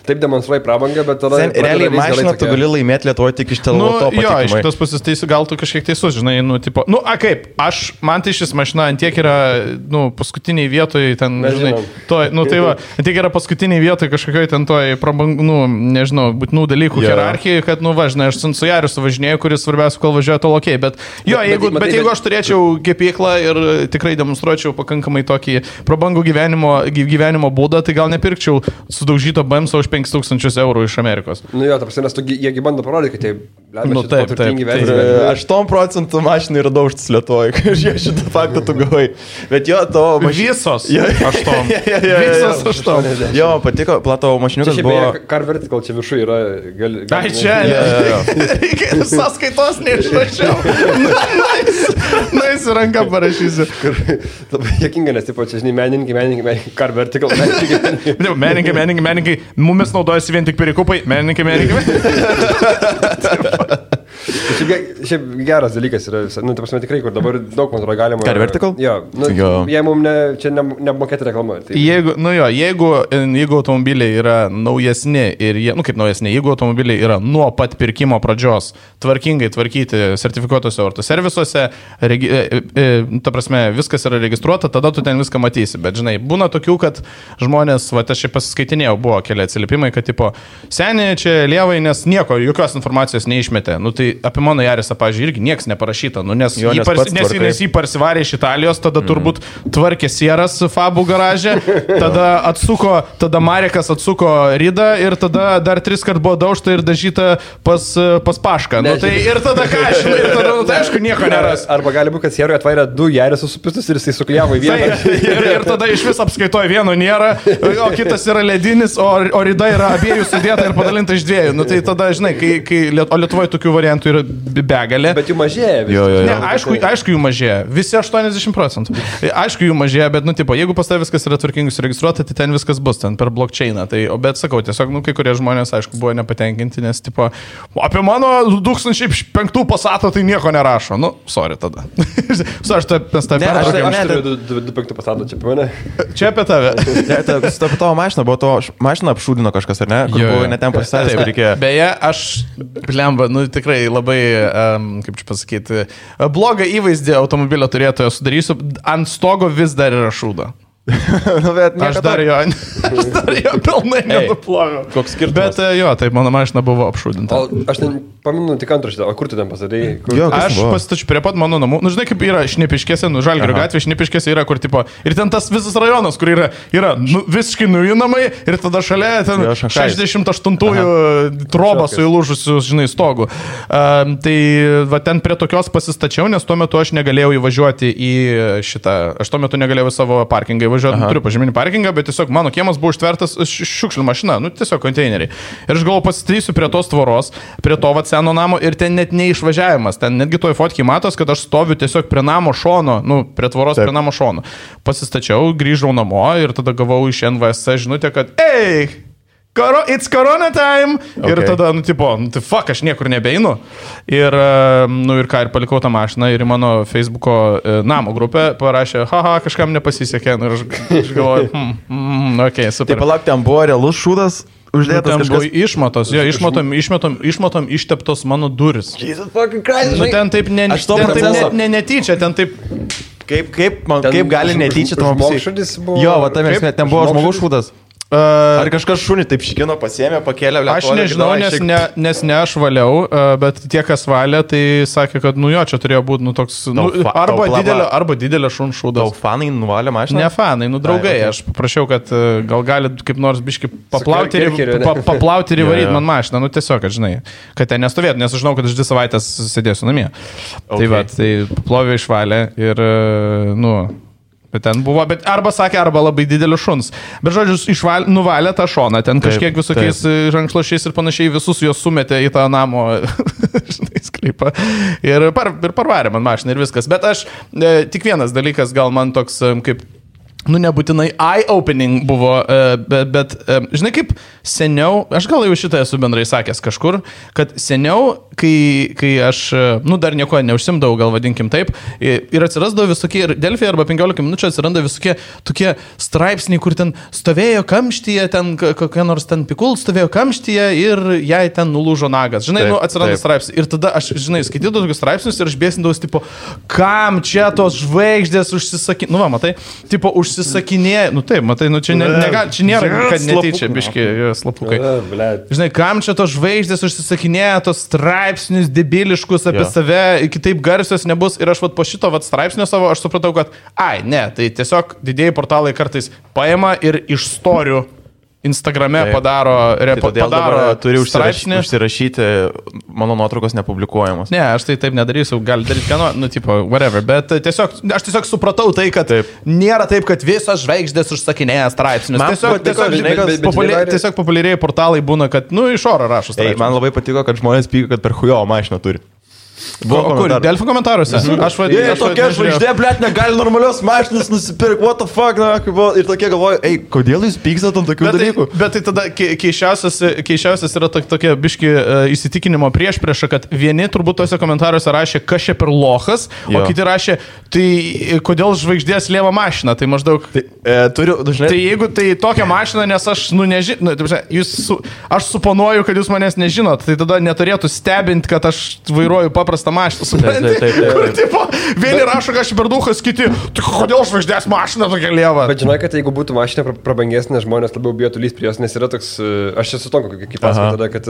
taip demonstruoji prabangą, bet tada... Realiai mašiną tu gali laimėti Lietuvoje tik iš teleloto patikimai. Jo, iš kitos pusės teisų, gal tu kažkiek teisus, žinai, tipo... Kaip, man tai šis mašina antiek yra, paskutiniai vietoje, ten, žinai, tai va, antiek yra paskutiniai vietoje kažkokioj ten toj prabangų, nežinau, būtinų dalykų hierarchijai, kad, žinai, aš su Jariu suvažinėjau, kuris svarbiausia, kol važiuoja to lokiai, bet jeigu aš turėčiau kepyklą ir tikrai demonstruočiau pakankamai tokį prabangų gyvenimo būdą, tai gal nepirkčiau sudaužyto BMS už 5,000 eurų iš Amerikos. Jo, ta prasme, nes jiegi bando parodyti, kad taip, turtingi verslininkai. 8% mašinų yra daužtas Lietuvoje, kai šitą faktą tu gavai. Bet jo, tavo mašinos. Visos 8. Jo, patiko, platavo mašiniukas buvo... Car Vertical čia viršų yra... Ai, čia, reikia sąskaitos neišrašiau. Nais ranką parašysiu. Labai jėkinga, nes, tipo, čia, žinai, menininkai, Car Vertical, menininkai, mumis naudojasi vien tik perikupai, menininkai. Šiaip geras dalykas yra, ta prasme tikrai, kur dabar daug, man atrodo, galima... Car Vertical? Jo, jie mums čia nemokėti reklamą. Jeigu automobiliai yra naujesni ir jie, kaip naujesni, jeigu automobiliai yra nuo pat pirkimo pradžios tvarkingai tvarkyti sertifikuotose autoservisuose, ta prasme, viskas yra registruota, tada tu ten viską matysi. Bet, žinai, būna tokių, kad žmonės, aš čia pasiskaitinėjau, buvo keli atsiliepimai, kad, tipo, seniai čia lievai, nes jokios informacijos neišmetė. Tai apie mano Jarisą, pavyzdžiui, irgi niekas neparašyta, nes jį parsivarė iš Italijos, tada turbūt tvarkė sieras Fabų garaže, tada Marekas atsuko ridą ir tada dar 3 kart buvo daužta ir dažyta pas Pašką. Tai ir tada ką, žinai, ir tada, aišku, nieko neras. Arba gali būti, kad sieroje atvairė 2 Jarisų supistus ir jisai sukliavo į vieną. Ir tada iš vis apskaitoja vieno nėra, o kitas yra ledinis, o rida yra abiejų sudėta ir padalinta iš 2. Tai tada, žinai, o Lietuvoje tokių variantų yra begalė. Bet jų mažėja. Ne, aišku, jų mažėja. Visi 80%. Aišku, jų mažėja, bet, jeigu pas tavai viskas yra tvarkingai suregistruota, tai ten viskas bus, ten per blockchainą. Bet sakau, tiesiog, kai kurie žmonės, aišku, buvo nepatenkinti, nes, apie mano 2005 Passatą tai nieko nerašo. Sorry tada. Aš turiu 2005 Passatą, čia apie mane. Čia apie tave. Apie tavo mašiną, buvo to mašiną apšūdino kažkas, ar ne? Kur buvo netem pasistatęs, kur reikėjo. Beje, aš, blemba, tikrai labai, kaip čia pasakyti, blogą įvaizdį automobilio turėtojo sudarysiu, ant stogo vis dar yra šūda. Aš dar jo pilnai nenuploviau. Koks skirtumas? Bet jo, taip, mano mašina buvo apšūdinta. Aš paminu tik antraštę, o kur tu ten pasadėjai? Aš pasitačiu prie pat mano namų. Žinai, kaip yra Šnipiškėse, Žalgirio gatvė, Šnipiškėse yra, kur, tipo, ir ten tas visas rajonas, kur yra visiškai nauji namai ir tada šalia ten 68-ųjų trobą su įlūžusiu, žinai, stogu. Tai va, ten prie tokios pasistačiau, nes tuo metu aš negalėjau įvažiuoti į šitą, aš tuo metu negalėjau į savo parkingą įvažiuoti. važiuoti, turiu pažyminį parkingą, bet tiesiog mano kiemas buvo užtvertas šiukšlių mašina, nu tiesiog konteineriai. Ir aš galvoju, pasistatysiu prie tos tvoros, prie to seno namo ir ten net neišvažiavimas. Ten netgi toj fotkiai matos, kad aš stoviu tiesiog prie namo šono, nu, prie tvoros prie namo šono. Pasistačiau, grįžau namo ir tada gavau iš NVSC žinutę, kad it's corona time. Okay. Ir tada, nu, tipo, tai fuck, aš niekur nebeinu. Ir, nu, ir ką, ir palikau tą mašiną ir į mano Facebooko namo grupę parašė, kažkam nepasisekė. Ir aš galvoju, okay, super. Tai palauk, ten buvo realus šūdas. Uždėtas ten kažkas... buvo išmatos, jo, išmatom išteptos mano duris. Jesus fucking Christ. Nu, ten taip netyčia, ten taip... Kaip gali netyčia tavo žmogus buvo... Jo, va, ten buvo žmogus šūdas. Ar kažkas šunį taip šikino, pasiėmė, pakėlė, aš nežinau, nes ne aš valiau, bet tie, kas valė, tai sakė, kad, nu jo, čia turėjo būti, nu, toks, arba didelio šunų šūdas. Tau fanai nuvalė mašiną? Ne fanai, nu, draugai. Aš paprašiau, kad gal gali kaip nors biški paplauti ir įvaryti man mašiną, nu, tiesiog, kad, žinai, kad ten nestovėtų, nes aš žinau, kad aš 2 savaitės sėdėsiu namie. Tai va, tai plovė išvalė ir, nu... Bet ten buvo, bet arba sakė, arba labai didelis šuns. Bet žodžiu, nuvalė tą šoną, ten kažkiek visokiais rankšluošiais ir panašiai visus juos sumetė į tą namo, žinai, sklypą. Ir parvarė man mašiną ir viskas. Bet aš, tik vienas dalykas, gal man toks kaip... Nu, nebūtinai eye-opening buvo, bet žinai, kaip seniau, aš gal jau šitą esu bendrai sakęs kažkur, kad seniau, kai aš, nu, dar nieko neužsimdavau, gal vadinkim taip, ir atsirasdavo visokie, ir Delfi arba 15 minučių atsiranda visokie tokie straipsniai, kur ten stovėjo kamštyje, ten kokia nors ten pikul stovėjo kamštyje ir jai ten nulūžo nagas. Žinai, nu, atsiranda straipsniai. Ir tada aš, žinai, skaitydavau tokius straipsnius ir aš bėsindavau, tipo, kam čia tos žvaigždės užsisakinė, nu, va, matai, tipo, užsisakinėja, nu taip, matai, nu čia čia nėra, kad netyčia, biški, slapukai. Žinai, kam čia tos žvaigždės užsisakinėja, tos straipsnius debiliškus apie save, kitaip garsios nebus. Ir aš vat po šito vat straipsnio savo, aš supratau, kad, ne, tai tiesiog didieji portalai kartais paima ir iš storių Instagrame padaro turi užsirašyti, mano nuotraukos nepublikuojamos. Ne, aš tai taip nedarysiu, gali daryti ką nori, nu, tipo, whatever, bet aš tiesiog supratau tai, kad nėra taip, kad visos žvaigždės užsakinėja straipsnius. Tiesiog populiariai portalai būna, kad, nu, iš oro rašo straipsnius. Man labai patiko, kad žmonės pyko, kad per chujo mašiną turi. Kur? Delfi komentaruose? Tokia žvaigždė, blėt, negali normalios mašinas nusipirkti, what the fuck, na, ir tokie galvoju, kodėl jūs pykstat ant tokių dalykų? Bet tai tada keišiausias yra tokia biški įsitikinimo priešprieša, kad vieni turbūt tose komentaruose rašė, kas čia per lochas, o kiti rašė, tai kodėl žvaigždės lieva mašina, tai maždaug... Tai jeigu tai tokia mašina, nes aš, nu, nežinau, aš suponuoju, kad jūs manęs nežinot, tai tada neturėtų stebinti, kad aš vairuoju paprastą mašiną, suprantate? Vieni rašo, kad aš per duhas, kiti, tai kodėl žvaigždės mašina tokia lieva? Bet žinai, kad jeigu būtų mašina prabangesnė, žmonės labiau bijotų lyst prie jos, nes yra toks, aš esu toks, kaip pasakau tada, kad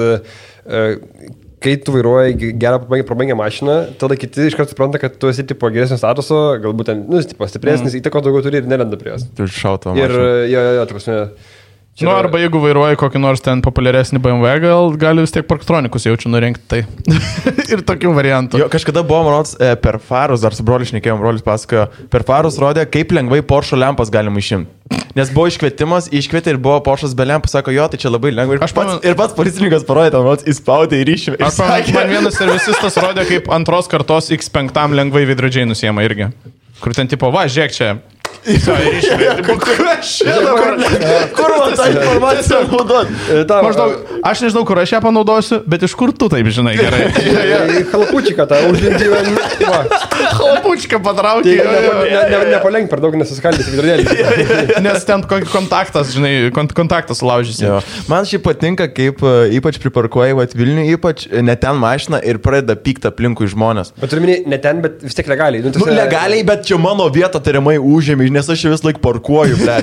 kai tu vairuoji gerą prabangią mašiną, tada kiti iš karto supranta, kad tu esi tipo geresnio statuso, galbūt ten, nu, tipo stipresnis, įtako daugiau turi ir nelenda prie jos. Tu šauto mašiną. Ir jo, ta prasme... Nu, arba jeigu vairuoji kokį nors ten populiaresnį BMW, gali vis tiek parktronikus jaučiu nurinkti tai. Ir tokių variantų. Jo, kažkada buvo, manos, per farus, dar su broliu šnekėjom, brolis pasakojo, per farus rodė, kaip lengvai Porsche lempas galima išimti. Nes buvo iškvietimas, iškvietė ir buvo Porsche'as be lempų, sako, jo, tai čia labai lengva. Ir pats policininkas parodė, ten, įspaudė ir išėmė. Man vienas servisistas rodė, kaip antros kartos X5 lengvai veidrodžiai nusiema irgi. Kur ten tipo, va, žiūrėk čia. Kur man tą informaciją naudot? Maždaug, aš nežinau, kur aš ją panaudosiu, bet iš kur tu taip žinai gerai. Halapučiką tą uždinti. Halapučiką patraukti. Nepalenk per daug, nesuskaldyti vidurėlį. Nes ten kontaktas, žinai, kontaktas sulaužysi. Man šiaip patinka, kaip ypač priparkuoji Vilnių, ypač ne ten mašiną ir pradeda pykti aplinkui žmonės. Bet turiu minėti, ne ten, bet vis tiek legaliai. Legaliai, bet čia mano vieta tariamai užėmė, nes aš vis laik parkuoju, ble.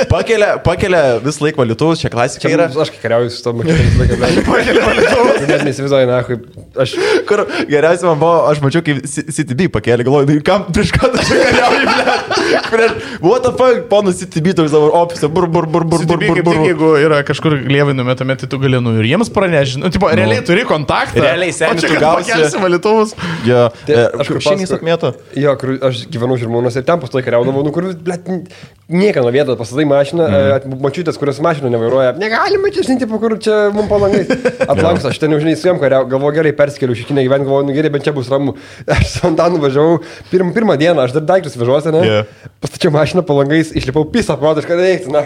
Pakelia vis laik valytuvus, čia klasika yra. Aš kai kariauju su to mašiną vis laiką, ble. Pakelia valytuvus. Net nesivizuoju, na, Kur geriausiai man buvo, aš mačiau, kaip CTB pakėlė, galvoju, kam prieš ką tu čia kariauji, ble. What the fuck, ponas CTB toks dabar ofise, bur. CTB kaip tik, jeigu yra kažkur lievai numetame, tai tu gali, ir jiems pranežinti. Nu, tipo, realiai turi kontaktą. Realiai seniai tu gausi. Pakelsi valytuvus. Jo, aš kur šiandien sakmėto. Jo, kur aš gyvenau Žirmūnuose ir ten pastoji kariaudavau, kur blet, nieką nuo vietos pastatai mašiną, mačiutės, kurios mašiną nevairuoja. Negalima čia, žinai, tipo, kur čia mums palangai. Atlanksta, aš ten jau, žinai, su jam kariau, galvoju, gerai perskeliu šikinę gyvenimą, galvoju, nu gerai, bet čia bus ramu. Aš su Antanu važiavau pirmą dieną, aš dar daiktus vežuosi, ne? Yeah. Pastačiau mašiną palangais, išlipau pisą, protiškai reikti, na.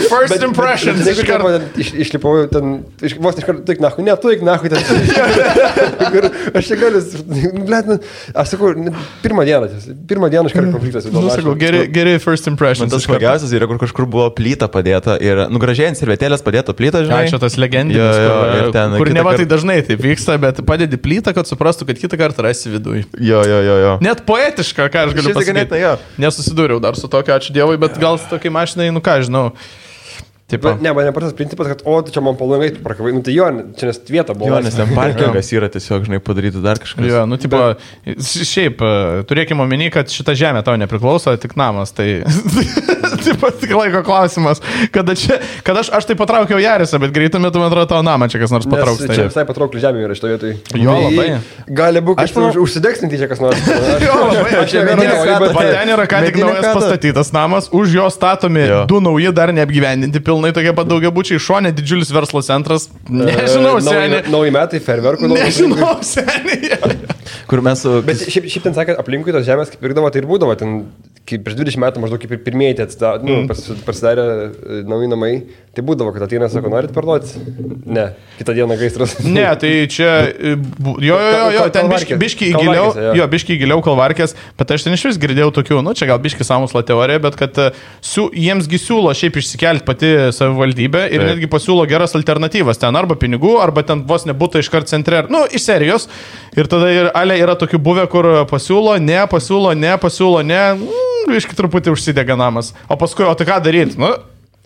First impressions. Išlipau ten, vos iš karto, tuik nahui ten. Aš čia galiu, blet, aš sakau, pirmą dieną iš karto konfliktas. Nu, sakau, geri first impressions. Man tas smagiausias yra, kur kažkur buvo plyta padėta ir, gražiai ant servetėlės padėta plyta, žinai. Čia tas legendinis, kur neva tai dažnai taip vyksta, bet padedi plytą, kad suprastų, kad kitą kartą rasi viduje. Jo. Net poetiška, ką aš galiu pasakyti. Nesusidūriau dar su tokiu, ačiū Dievui, bet gal su tokiai mašinai, nu ką, žinau. Ne, man nepatas principas, kad, čia man palangai prakavai, nu tai jo, čia nes vieta buvo. Jo, nes ten parkingas yra tiesiog, žinai, padaryti dar kažkas. Jo, nu, tipo, šiaip, turėkime omeny, kad šita žemė tau nepriklauso, tik namas, tai taip pat tik laiko klausimas, kad aš tai patraukiau Jarisą, bet greitų metų, man atrodo, tavo namą čia kas nors patrauks. Nes čia visai patraukli žemė yra šitoje vietoje. Jo, labai. Gali būti, aš užsidegsinti čia kas nors. Jo, labai. Ten yra ką tik naujas pastatytas namas, už jo statomi du nauji dar neapgyvendinti pilnai tokie pat daugiabučiai, šone didžiulis verslo centras. Nežinau, seniai. Nauji metai, ferverkų. Nežinau, seniai. Kur mes su... Bet šiaip ten sakė, aplinkui tos žemės kaip pirkdavo, tai ir būdavo. Ten, kaip prieš 20 metų maždaug kaip ir pirmieji pasidarė nauji namai. Tai būdavo, kad ateina, sako, norit parduoti? Ne, kitą dieną gaisras. Ne, tai čia... Jo, ten biški giliau Kalvarkės, bet aš ten iš vis girdėjau tokių, nu čia gal biški sąmokslo teorija, bet kad jiemsgi siūlo šiaip išsikelti pati savivaldybė ir netgi pasiūlo geras alternatyvas. Ten arba pinigų, arba ten vos nebūtų iškart centre, nu, iš serijos. Ir tada ir ale yra tokių buvę, kur pasiūlo, ne, iški truputį užsidega namas. O paskui, o tai ką daryti? Nu,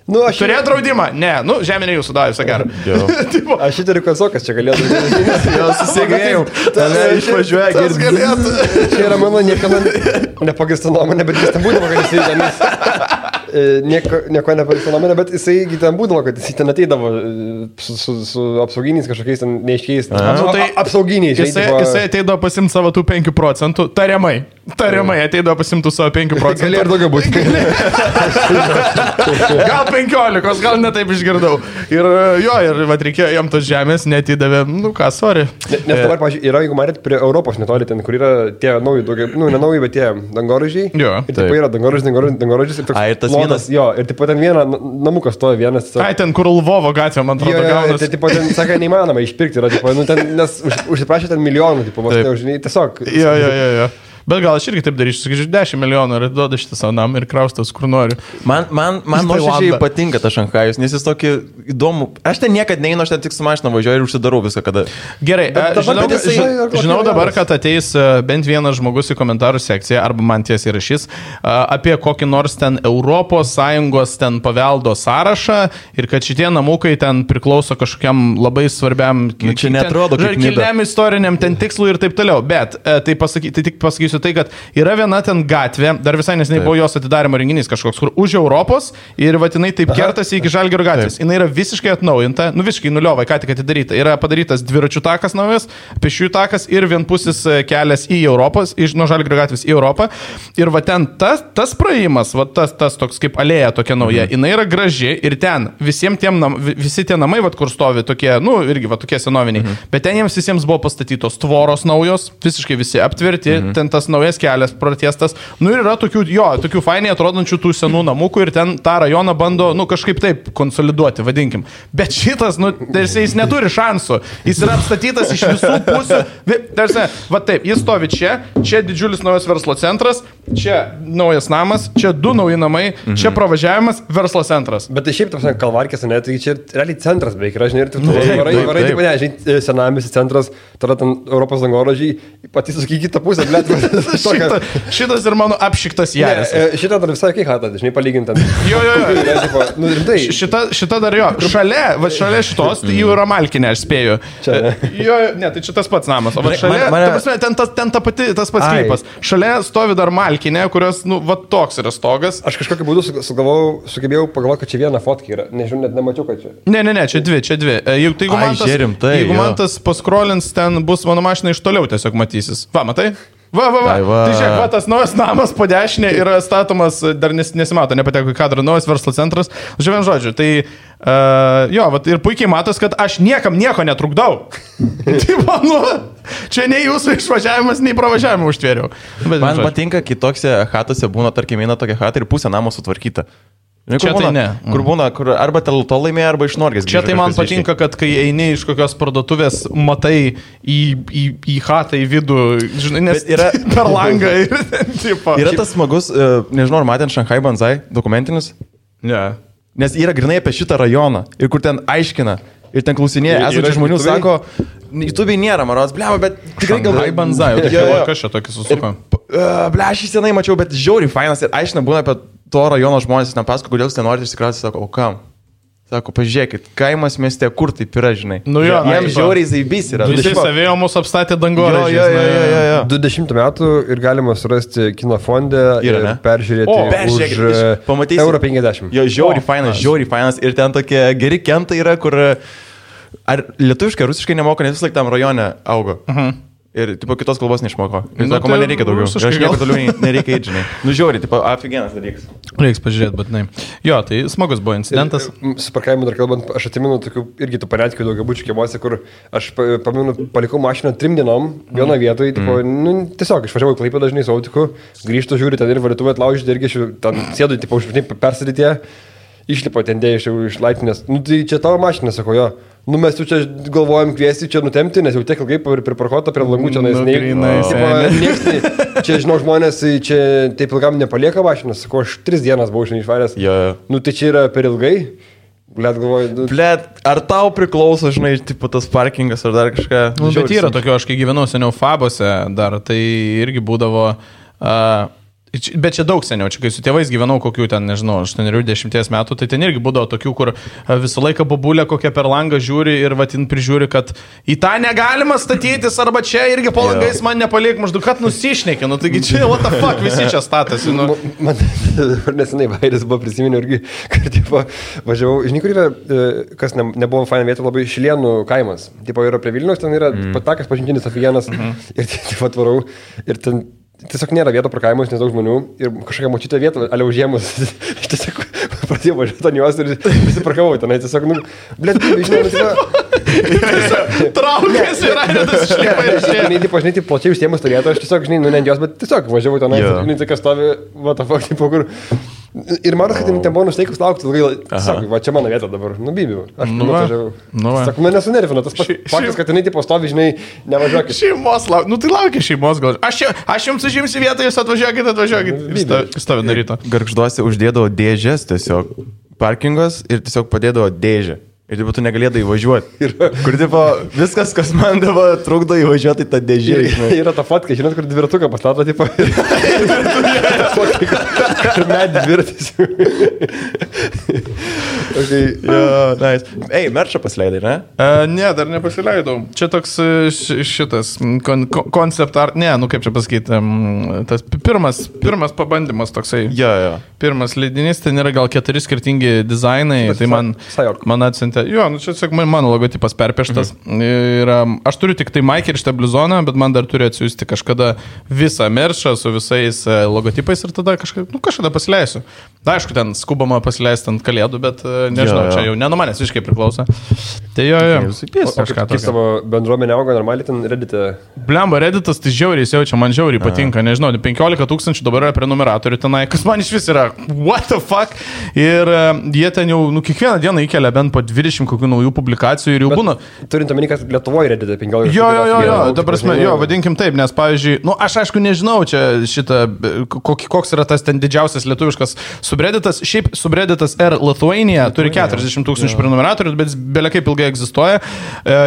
turėjo draudimą? Ne, žemė ne jūsų davė, sakai. Aš įtariu, kad Sokas čia galėtų. Jo, susigėjau. Tave išvažiuoja, galėtų. Čia yra mano niekada nepagista nuomonė, bet jis ten būdavo, kad jisai tenais. Nieko nepagista nuomonė, bet jisai ten būdavo, kad jisai ten ateidavo su apsauginiais kažkokiais ten neiškiais. Apsauginiais. Jisai ateidavo pasimti savo tų 5%, tariamai ateidavo pasimti savo 5%. Gali ir daugiau būti. Gal 15, gal netaip išgirdau. Ir reikėjo jam tos žemės, netidavė, sorry. Nes dabar, pavyzdžiui, yra, jeigu matėt, prie Europos netoli ten, kur yra tie nauji, ne nauji, bet tie dangoraižiai. Jo. Ir taip yra dangoraižis ir toks plonas. Jo, ir taip pat ten namukas stoja vienas. Ai, ten kur Lvovo gatvė, man atrodo, gaunas. Tai taip pat ten, sakai, neįmanoma išpirkti, yra, nes užsiprašė ten milijonų, tiesiog. Jo. Bet gal aš irgi taip darysiu, sakyčiau, 10 milijonų ir duoda šitą savo namą ir kraustas, kur noriu. Man nuoširdžiai patinka tas Šanchajus, nes jis tokį įdomų. Aš ten niekad neinu, aš ten tik su mašina važiuoju ir užsidarau viską, kada. Gerai, žinau dabar, kad ateis bent vienas žmogus į komentarų sekciją, arba man tiesiai rašys, apie kokį nors ten ES ten paveldo sąrašą ir kad šitie namukai ten priklauso kažkokiam labai svarbiam, čia netrodo kaip kilniam istoriniam ten tikslui ir taip toliau. Bet tai tik pasakysiu tai, kad yra viena ten gatvė, dar visai nesiniai buvo jos atidarimo renginys kažkoks, kur už Europos ir vatinai taip kertasi iki Žalgirio gatvės. Jis yra visiškai atnaujinta, visiškai nuliovai, ką tik atidaryta. Yra padarytas dviračių takas naujas, pėsčiųjų takas ir vienpusis kelias į Europos, nuo Žalgirio gatvės į Europą. Ir va ten tas praėjimas, va tas toks kaip alėja tokia nauja, jinai yra graži ir ten visi tie namai, va kur stovi tokie, irgi va tokie senoviniai, bet ten jiems visiems buvo pastatytos tvoros naujos, visiškai visi aptverti, ten tas naujas kelias pratiestas. Ir yra tokių fainiai atrodančių tų senų namukų ir ten tą rajoną bando, kažkaip taip konsoliduoti, vadinkim. Bet šitas, jis neturi šansų. Jis yra apstatytas iš visų pusių. Va taip, jis stovi čia didžiulis naujas verslo centras, čia naujas namas, čia 2 nauji namai, čia pravažiavimas, verslo centras. Bet tai šiaip, Kalvarkės, ne, tai čia realiai centras beveik yra, žinai, ir varai, senamiestis centras, tada ten Europos dangoraižiai, patys sakykite tą pusę, blėt. Šitas ir mano apšiktas Jaris. Šitą dar visai kai hatą, žinai, palygintant. Jo. Šita dar jo. Šalia šitos, tai jau yra Malkinė, aš spėju. Jo, ne, tai čia tas pats namas. O šalia, ten tas pats klipas. Šalia stovi dar Malkinė, kurios, toks yra stogas. Aš kažkokiu būdu sugebėjau pagalvoti, kad čia viena fotka yra. Nežinau, net nemačiau, kad čia. Ne, čia dvi. Jeigu man tas paskrolins, ten bus mano mašina iš toliau tiesiog matysis. Va, matai? Ai, va. Tai žiūrėk, va, tas naujas namas po dešinė yra statomas, dar nesimato, nepateko į kadrą, naujas verslo centras. Žiūrėjom žodžiu, tai jo, va, ir puikiai matos, kad aš niekam nieko netrukdau. Tai manu, čia nei jūsų išvažiavimas, nei pravažiavimą užtvėriau. Man patinka, kai tokiose chatose būna, tarkim, eina tokia chata ir pusė namo sutvarkyta. Čia tai ne. Kur būna, kur arba to laimėjo, arba iš Norgės. Čia tai man patinka, kad kai eini iš kokios parduotuvės, matai į chatą, į vidų, žinai, nes yra per langą. Yra tas smagus, nežinau, ar matėt Šanchai Banzai dokumentinis? Ne. Nes yra grinai apie šitą rajoną ir kur ten aiškina. Ir ten klausinėja, esančių žmonių sako, YouTube'ai nėra, maros, blema, bet tikrai gal... Šanchai Banzai, kas čia tokį susuko? Ble, aš jį senai mačiau, bet žiauriai fainas ir aiškina būna apie to rajono žmonės, ten pasako, kodėl jūs ten norite išsikrauti, sako, o kam? Sako, pažiūrėkit, kaimas mieste, kur taip yra, žinai. Nu jo, jiems žiauriai zaibys yra. Visi savėjo mus apstatė dangoraižiais. Jo. 20 metų ir galima surasti kino fonde ir peržiūrėti už €50. Jo, žiauriai fainas. Ir ten tokie geri kentai yra, kur... Ar lietuviškai, rusiškai nemoka, nes vis laik tam rajone augo. Ir, tipo, kitos kalbos neišmoko. Ir sako, man nereikia daugiau. Ir aš nieko toliau nereikia eiti, žinai. Nu, žiauriai, tipo, aфиgenas dalykas. Reiks pažiūrėti, bet ne. Jo, tai smagus buvo incidentas. Su parkavimu dar kalbant, aš atsimenu tokių irgi tų paretkių daugiabučių kiemuose, kur aš pamenu, palikau mašiną 3 dienom, vieno vietoje, tipo, nu, tiesiog išvažiavau į Klaipėdą dažnai su autiku, grįžtu, žiūriu, ten ir valytuvę atlaužyti, irgi ten sėdu, tipo, persidėtė, išlipo ten dėjau iš laiptinės. Nu, tai čia tavo mašina, sako, jo. Nu, mes jau čia galvojam kviesti čia nutemti, nes jau tiek ilgai priparkuota prie langų čia čia, žinau, žmonės čia taip ilgam nepalieka mašinas, sako, aš 3 dienas buvau šiandien išvaręs. Nu, tai čia yra per ilgai. Blet, galvoju. Blet, ar tau priklauso, žinai, tipo tas parkingas ar dar kažką? Nu, bet yra tokio, aš kai gyvenau seniau Fabose dar, tai irgi būdavo... Bet čia daug seniau, čia kai su tėvais gyvenau kokių ten, nežinau, 8-10 metų, tai ten irgi būdavo tokių, kur visą laiką babulė kokią per langą žiūri ir vatin prižiūri, kad į tą negalima statytis, arba čia irgi po langais man nepaliek, maždaug, kad nusišnekė, nu taigi čia, what the fuck, visi čia statasi. Nu. Man nesenai Vaidas buvo prisiminiau irgi, kad tipo, važiavau, žinai, kur yra, kas nebuvo faina vieta, labai Šilienų kaimas. Tipo, yra prie Vilniaus, ten yra patakas pažintinis aфиgenas ir tipo atvarau ir ten tiesiog nėra vieto parkavimo, nes daug žmonių ir kažkokia močiutė vieta, ale užėmus, aš tiesiog pradėjau važiuoti ant jos ir visi parkavau tenai, tiesiog, nu, blėt, žinai, traukės ir aidas išlipa ir žinai, taip plačiai užsiemus turėtų, aš tiesiog, žinai, nu, ne ant jos, bet tiesiog važiavau tenai, žinai, tai kas stovi, what the fuck, tipo, kur... Ir matas, kad ten buvo nusteikus laukti ilgai, sako, va čia mano vieta dabar, nubybiu, aš važiavau. Sako, mane sunervino, tas faktas, kad jinai tipo stovi, žinai, nevažiuokit. Šeimos laukia, nu tai laukia šeimos gal. Aš jums užimsiu vietą, jūs atvažiuokit. Stovi nuo ryto. Gargžduose uždėdavo dėžės tiesiog, parkingas ir tiesiog padėdavo dėžę. Ir taip tu negalėdai įvažiuoti. Kur tipo viskas, kas man dabar trukdo įvažiuoti, tą dėžę. Yra ta fatka, žinot, kur dviratuką pastato, tipo. Ir net dviratis. Nice. Ei, merčą pasileidai, ne? Ne, dar nepasileidau. Čia toks šitas koncept art, ne, nu kaip čia pasakyti, tas pirmas pabandymas toksai. Pirmas leidinys, ten yra gal 4 skirtingi dizainai, tai man atsiuntė. Jo, nu čia tiesiog mano logotipas perpieštas. Ir aš turiu tik tai Mike ir šitą blizoną, bet man dar turi atsiųsti kažkada visą merčą su visais logotipais ir tada kažkada pasileisiu. Da, aišku, ten skubama pasileisti ant kalėdų, bet nežinau, čia jau ne nuo manęs visiškai priklauso. Tai jo. Kaip savo bendruomenė auga normaliai ten Reddit'e? Blemba, Redditas tai žiauriai jaučia, man žiauriai patinka, nežinau, 15 000 dabar yra prenumeratorių tenai, kas man iš vis yra, what the fuck? Ir jie ten jau, kiekvieną dieną įkelia bent po 20 kokių naujų publikacijų ir jau būna. Turint omeny, kad Lietuvoje Reddit'e 15 000. Jo, ta prasme, vadinkim taip, nes pavyzdžiui, aš aišku nežinau čia šitą, koks yra tas ten didžiausias lietuviškas subredditas, šiaip subredditas R Lithuania turi 40 000 prenumeratorių, bet belia kaip ilgai egzistuoja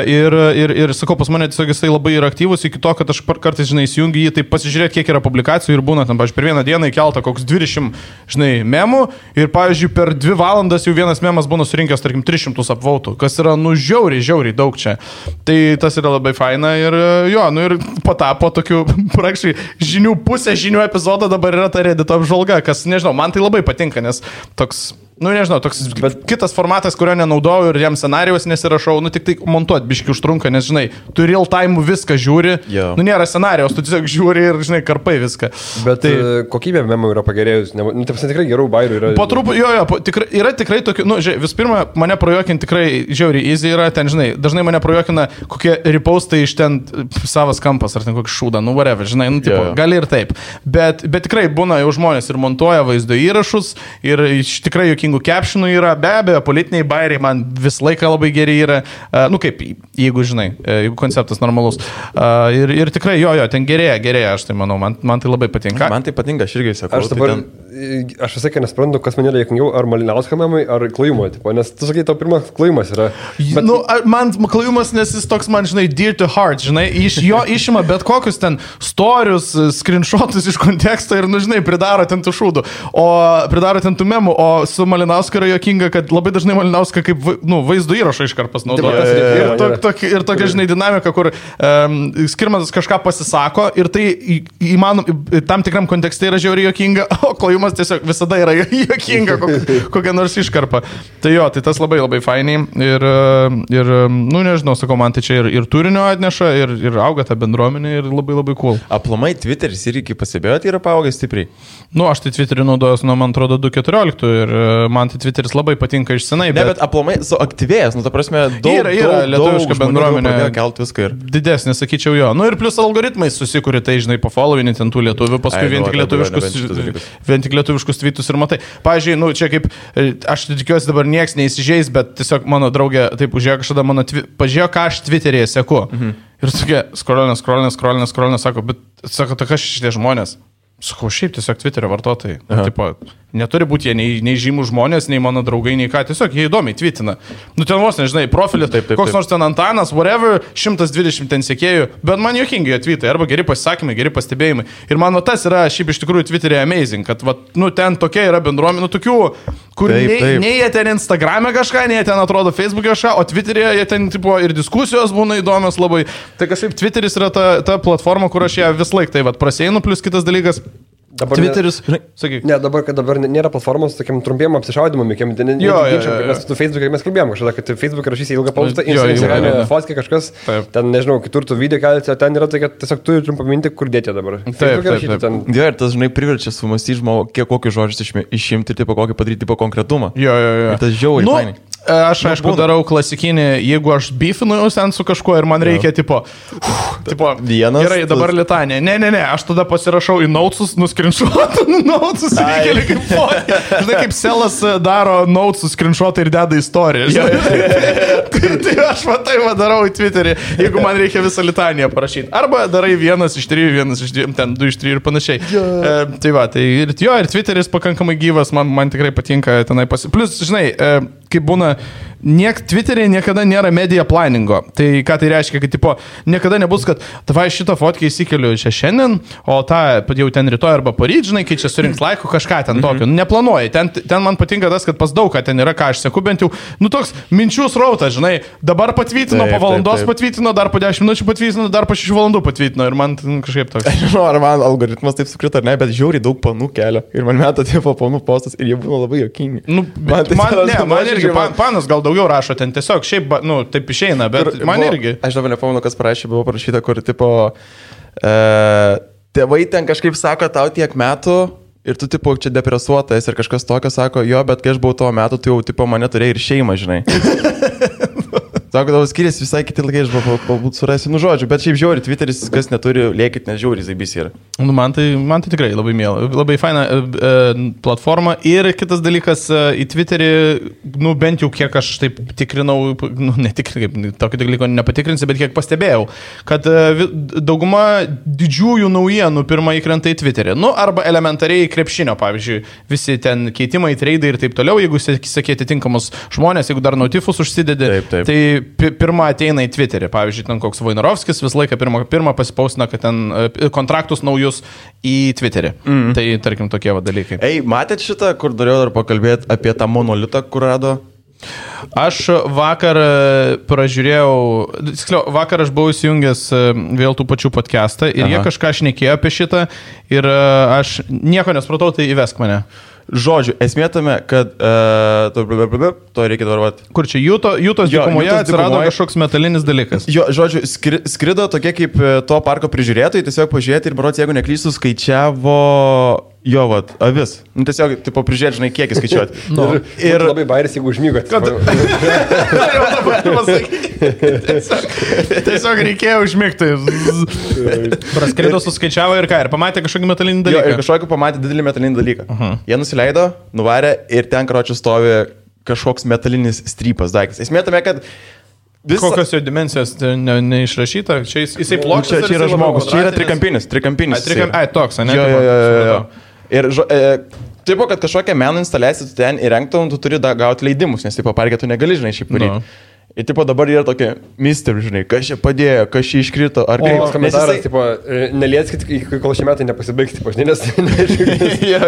ir sakau, pas mane tiesiog jisai labai yra aktyvus iki to, kad aš kartais, žinai, įsijungiu jį, tai pasižiūrėti, kiek yra publikacijų ir būna tam, pavyzdžiui, per vieną dieną įkelta koks 20, žinai, memų ir, pavyzdžiui, per 2 valandas jau vienas memas būna surinkęs, tarkim, 300 apvautų, kas yra, žiauriai daug čia. Tai tas yra labai faina ir jo, ir patapo tokių praktiškai pusė žinių epizodo dabar yra ta Reddito apžvalga, kas, nežinau, man tai labai patinka, nes toks Nu, nežinau, toks kitas formatas, kurio nenaudoju ir jam scenarijos nesirašau, nu tik tai montuot biški užtrunka, nes, žinai, tu real time viską žiūri, nu nėra scenarijos, tu tiesiog žiūri ir, žinai, karpai viską. Bet tai kokybė memų yra pagerėjus, nu, taip tikrai gerų bairių yra. Po truputį, yra tikrai tokių, nu, žiūrėk, vis pirma, mane projekinti tikrai žiauriai easy yra, ten, žinai, dažnai mane projekina kokie repostai iš ten savas kampas, ar ten kokį šūdą, nu, whatever, žinai, nu, tipo, gali ir taip. Bet tikrai būna jau žmonės ir montuoja vaizdo įrašus ir tikrai captionų yra, be abejo, politiniai bairiai man visą laiką labai geri yra, nu kaip, jeigu žinai, jeigu konceptas normalus. Ir tikrai ten gerėja, aš tai manau, man tai labai patinka. Man tai patinka, aš irgi sakau. Aš visai nesprantu, kas man yra juokingiau, ar Malinausko memai, ar Klajumo, nes tu sakai, tau pirmas Klajumas yra. Bet... Nu, man Klajumas, nes jis toks man, žinai, dear to heart, žinai, iš jo išima bet kokius ten storius, screenshotus iš konteksto ir, nu, žinai, pridaro ten tų šūdų, pridaro ten tų memų, o su Malinausko yra juokinga, kad labai dažnai Malinauska kaip, nu, vaizdo įrašą iškarpas naudoja. Ir tokia, žinai, dinamika, kur Skirmantas kažką pasisako ir tai tam tikram kontekste yra žiauriai juokinga, o Klajumas tiesiog visada yra juokinga kokia nors iškarpa. Tai tai tas labai labai fainiai ir nu, nežinau, sakau, man tai čia ir turinio atneša, ir auga ta bendruomenė ir labai labai cool. Aplamai Twitteris irgi pasibėjot yra paaugęs stipriai. Nu, aš tai Twitterį naudojuosi nuo, man atrodo, 2014 ir man tai Twitteris labai patinka iš senai. Bet aplamai suaktyvėjęs, nu, ta prasme, daug lietuviška bendruomenė. Kelt viską ir. Didesnė, sakyčiau, jo. Nu ir plus algoritmai susikūrė, tai, žinai, pafollowinti ten tų lietuvių, paskui vien tik lietuviškus tweetus ir matai. Pavyzdžiui, nu, čia kaip, aš tikiuosi dabar nieks neįsižeis, bet tiesiog mano draugė taip užėjo kažkada pažiūrėjo, ką aš Twitter'yje seku. Ir tokia, skrolinė, sako, bet, sako, tai kas šitie žmonės? Sakau, šiaip tiesiog Twitterio vartotojai. Tipo, neturi būti jie nei žymų žmonės, nei mano draugai, nei ką. Tiesiog jie įdomiai twitina. Nu ten vos, nežinai, profilį, koks nors ten Antanas, whatever, 120 ten sekėjų, bet man juokingi jie tweetai, arba geri pasisakymai, geri pastebėjimai. Ir man tas yra šiaip iš tikrųjų Twitter'e amazing, kad, nu, ten tokia yra bendruomenė, nu, tokių, kur nei jie ten Instagram'e kažką, nei jie ten atrodo Facebook'e kažką, o Twitter'e jie ten, tipo, ir diskusijos būna įdomios labai. Tai kažkaip Twitteris yra ta platforma, kur aš ją vis laik tai prasieinu, plus kitas dalykas. Dabar Twitteris, sakyk. Ne, dabar nėra platformos tokiam trumpiem apsišaudimam, nes tu Facebook'e mes kalbėjom kažkada, kad Facebook'e rašysi ilgą postą, Instagram'e fotkė kažkas, ten nežinau, kitur tu video kelti, o ten yra tai, kad tiesiog turi trumpą minti, kur dėti dabar. Jo, ir tas, žinai, priverčia sumastyti žmogų, kiek kokius žodžius išimti, tipo kokį padaryti, tipo konkretumą. Jo. Ir tas žiauriai fainai. Aš, aišku, darau klasikinį, jeigu aš beefinu sen su kažkuo ir man reikia, tipo, vienas. Gerai, dabar litanė. Ne, aš tada pasirašau į notesus, nuskrinšuotą notesus ir įkeli kaip fotkę. Žinai, kaip Selas daro notesus, skrinšuotą ir deda istoriją. Tai aš darau į Twitterį, jeigu man reikia visą litaniją parašyti. Arba darai 1 iš 3, 1 iš 2, ten 2 iš 3 ir panašiai. Ir Twitteris pakankamai gyvas, man tikrai patinka tenai Plus, žinai, kaip būna, Twitter'e niekada nėra media planingo. Tai ką tai reiškia, kad tipo, niekada nebus, kad tavai šitą fotkę įsikeliu čia šiandien, o tą jau ten rytoj arba poryt, žinai, kai čia surinks laikų kažką ten tokio. Neplanuoji. Ten man patinka tas, kad pas daug, kad ten yra, ką aš seku, bent jau, nu toks minčių srautas, žinai, dabar patvytino, po valandos patvytino, dar po 10 minučių patvytino, dar po 6 valandų patvytino ir man kažkaip toks. Aš žinau, ar man algoritmas taip sukrito, ar ne, bet žiauriai daug panų kelia. Ir man meta tipo panų postas ir jie būna labai juokingi. Nu, man irgi panas gal daugiau rašo ten tiesiog, šiaip, nu, taip išeina, bet man irgi. Aš dabar nepamenu, kas parašė, buvo parašyta, kur tipo tėvai ten kažkaip sako tau tiek metų ir tu tipo čia depresuotas ir kažkas tokio sako, jo, bet kai aš buvau tuo metu, tu jau tipo mane turėjai ir šeimą, žinai. Sako, tavo skiriasi visai kiti laikai, aš galbūt surasiu, nu žodžiu, bet šiaip žiauri, Twitteris, kas neturi, lėkit, nes žiauri, zaibys yra. Nu, man tai tikrai labai mėla, labai faina platforma ir kitas dalykas, į Twitterį, nu bent jau kiek aš taip tikrinau, nu netikrinau, tokio dalyko nepatikrinsiu, bet kiek pastebėjau, kad dauguma didžiųjų naujienų pirmą įkrenta į Twitterį, nu arba elementariai krepšinio, pavyzdžiui, visi ten keitimai, treidai ir taip toliau, jeigu sakė atitinkamus žmonės, jeigu dar notifus užsidedi, tai pirmą ateina į Twitterį, pavyzdžiui, ten koks Vojnarovskis visą laiką pirmą pasipausina, kad ten kontraktus naujus į Twitterį. Tai, tarkim, tokie dalykai. Ei, matėt šitą, kur norėjau dar pakalbėti apie tą monolitą, kur rado? Aš vakar pražiūrėjau, vakar aš buvau įsijungęs vėl tų pačių podcastą ir jie kažką šnekėjo apie šitą ir aš nieko nesupratau, tai įvesk mane. Žodžiu, esmė tame, kad to reikia dabar. Kur čia Jūtos dykumoje atsirado kažkoks metalinis dalykas. Jo, žodžiu, skrido tokie kaip to parko prižiūrėtojai, tiesiog pažiūrėti ir berods, jeigu neklystu, skaičiavo jo, vat, avis. Tiesiog, tipo, prižiūrėti, žinai, kiekį skaičiuoti. Ir labai bairis, jeigu užmygot. Tiesiog reikėjo užmigti. Praskrido, suskaičiavo ir ką, ir pamatė kažkokį metalinį dalyką. Jo, ir kažkokį pamatė didelį metalinį dalyką. Jie nusileido, nuvarė ir ten, karočiui, stovi kažkoks metalinis strypas daiktas. Esmė tame, kad kokios jo dimensijos neišrašyta? Čia jisai plokščias. Čia yra žmogus, čia yra trikampinis. Ai, toks, ne? Jo. Ir taip, kad kažkokią meno instaliaciją tu ten įrengtum, tu turi gauti leidimus, nes taip parke tu negali, žinai, šiaip varyti. Ir tipo dabar yra tokia mister, žinai, kas čia padėjo, kas čia iškrito, ar kaip. Komentaras, tipo, nelieskit, kol šie metai nepasibaigs, tipo, žinai, nes... Jo.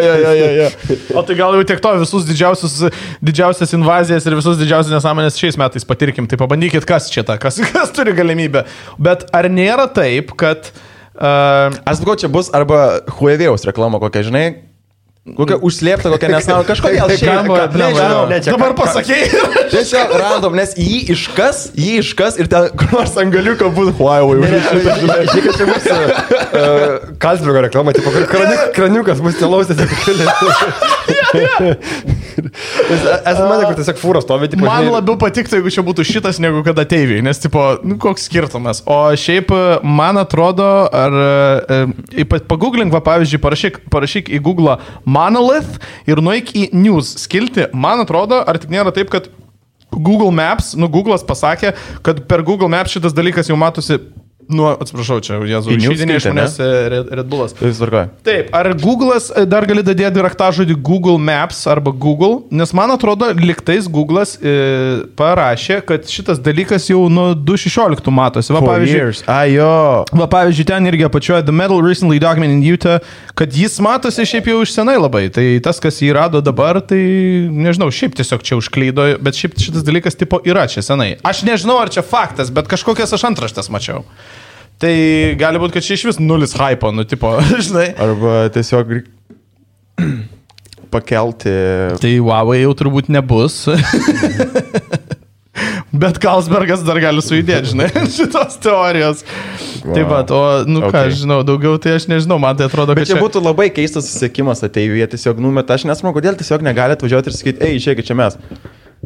O tai gal jau tiek to visus didžiausias invazijas ir visus didžiausias nesąmonės šiais metais patirkim, tai pabandykit, kas čia ta, kas turi galimybę. Bet ar nėra taip, kad... Aš sakau, čia bus arba Huawei'aus reklama kokia, žinai, kokia užslėpta, kokia nesąmonė, kažkodėl šiaip, nežinau. Dabar pasakėjai. Tiesiog random, nes jį iškas ir ten kur nors ant galiuko būtų Huawei. Žiūrėk, kad čia bus Kalsbergo reklama, tipo, kraniukas bus telausės. Esu manę, kur tiesiog fūros stovi. Man labiau patiktų, jeigu čia būtų šitas, negu kad ateiviai, nes, tipo, koks skirtumas. O šiaip, man atrodo, pagooglink, va, pavyzdžiui, parašyk į Google Monolith ir nueik į News skilti. Man atrodo, ar tik nėra taip, kad Google Maps, Google'as pasakė, kad per Google Maps šitas dalykas jau matosi, atsiprašau, čia Jėzų, išeidinė iš manęs Red Bullas. Taip, ar Google'as dar gali dadėti raktažodį Google Maps arba Google, nes man atrodo, liktais Google'as parašė, kad šitas dalykas jau nuo 2016 matosi. Va, pavyzdžiui, ten irgi apačioje The Metal Recently Documented in Utah, kad jis matosi šiaip jau iš senai labai. Tai tas, kas jį rado dabar, tai nežinau, šiaip tiesiog čia užklydo, bet šiaip šitas dalykas tipo yra čia senai. Aš nežinau, ar čia faktas, bet kažkokias aš antraštes mačiau. Tai gali būti, kad čia iš vis nulis hypo, tipo, žinai. Arba tiesiog pakelti. Tai Huawei jau turbūt nebus. Bet Carlsbergas dar gali sujudėti, žinai, šitos teorijos. Wow. Taip pat, ką aš žinau, daugiau tai aš nežinau, man tai atrodo, kad čia būtų labai keistas susiekimas ateivyje, tiesiog numeta, aš nesmanau, kodėl tiesiog negali atvažiuoti ir sakyti, išėkit čia mes.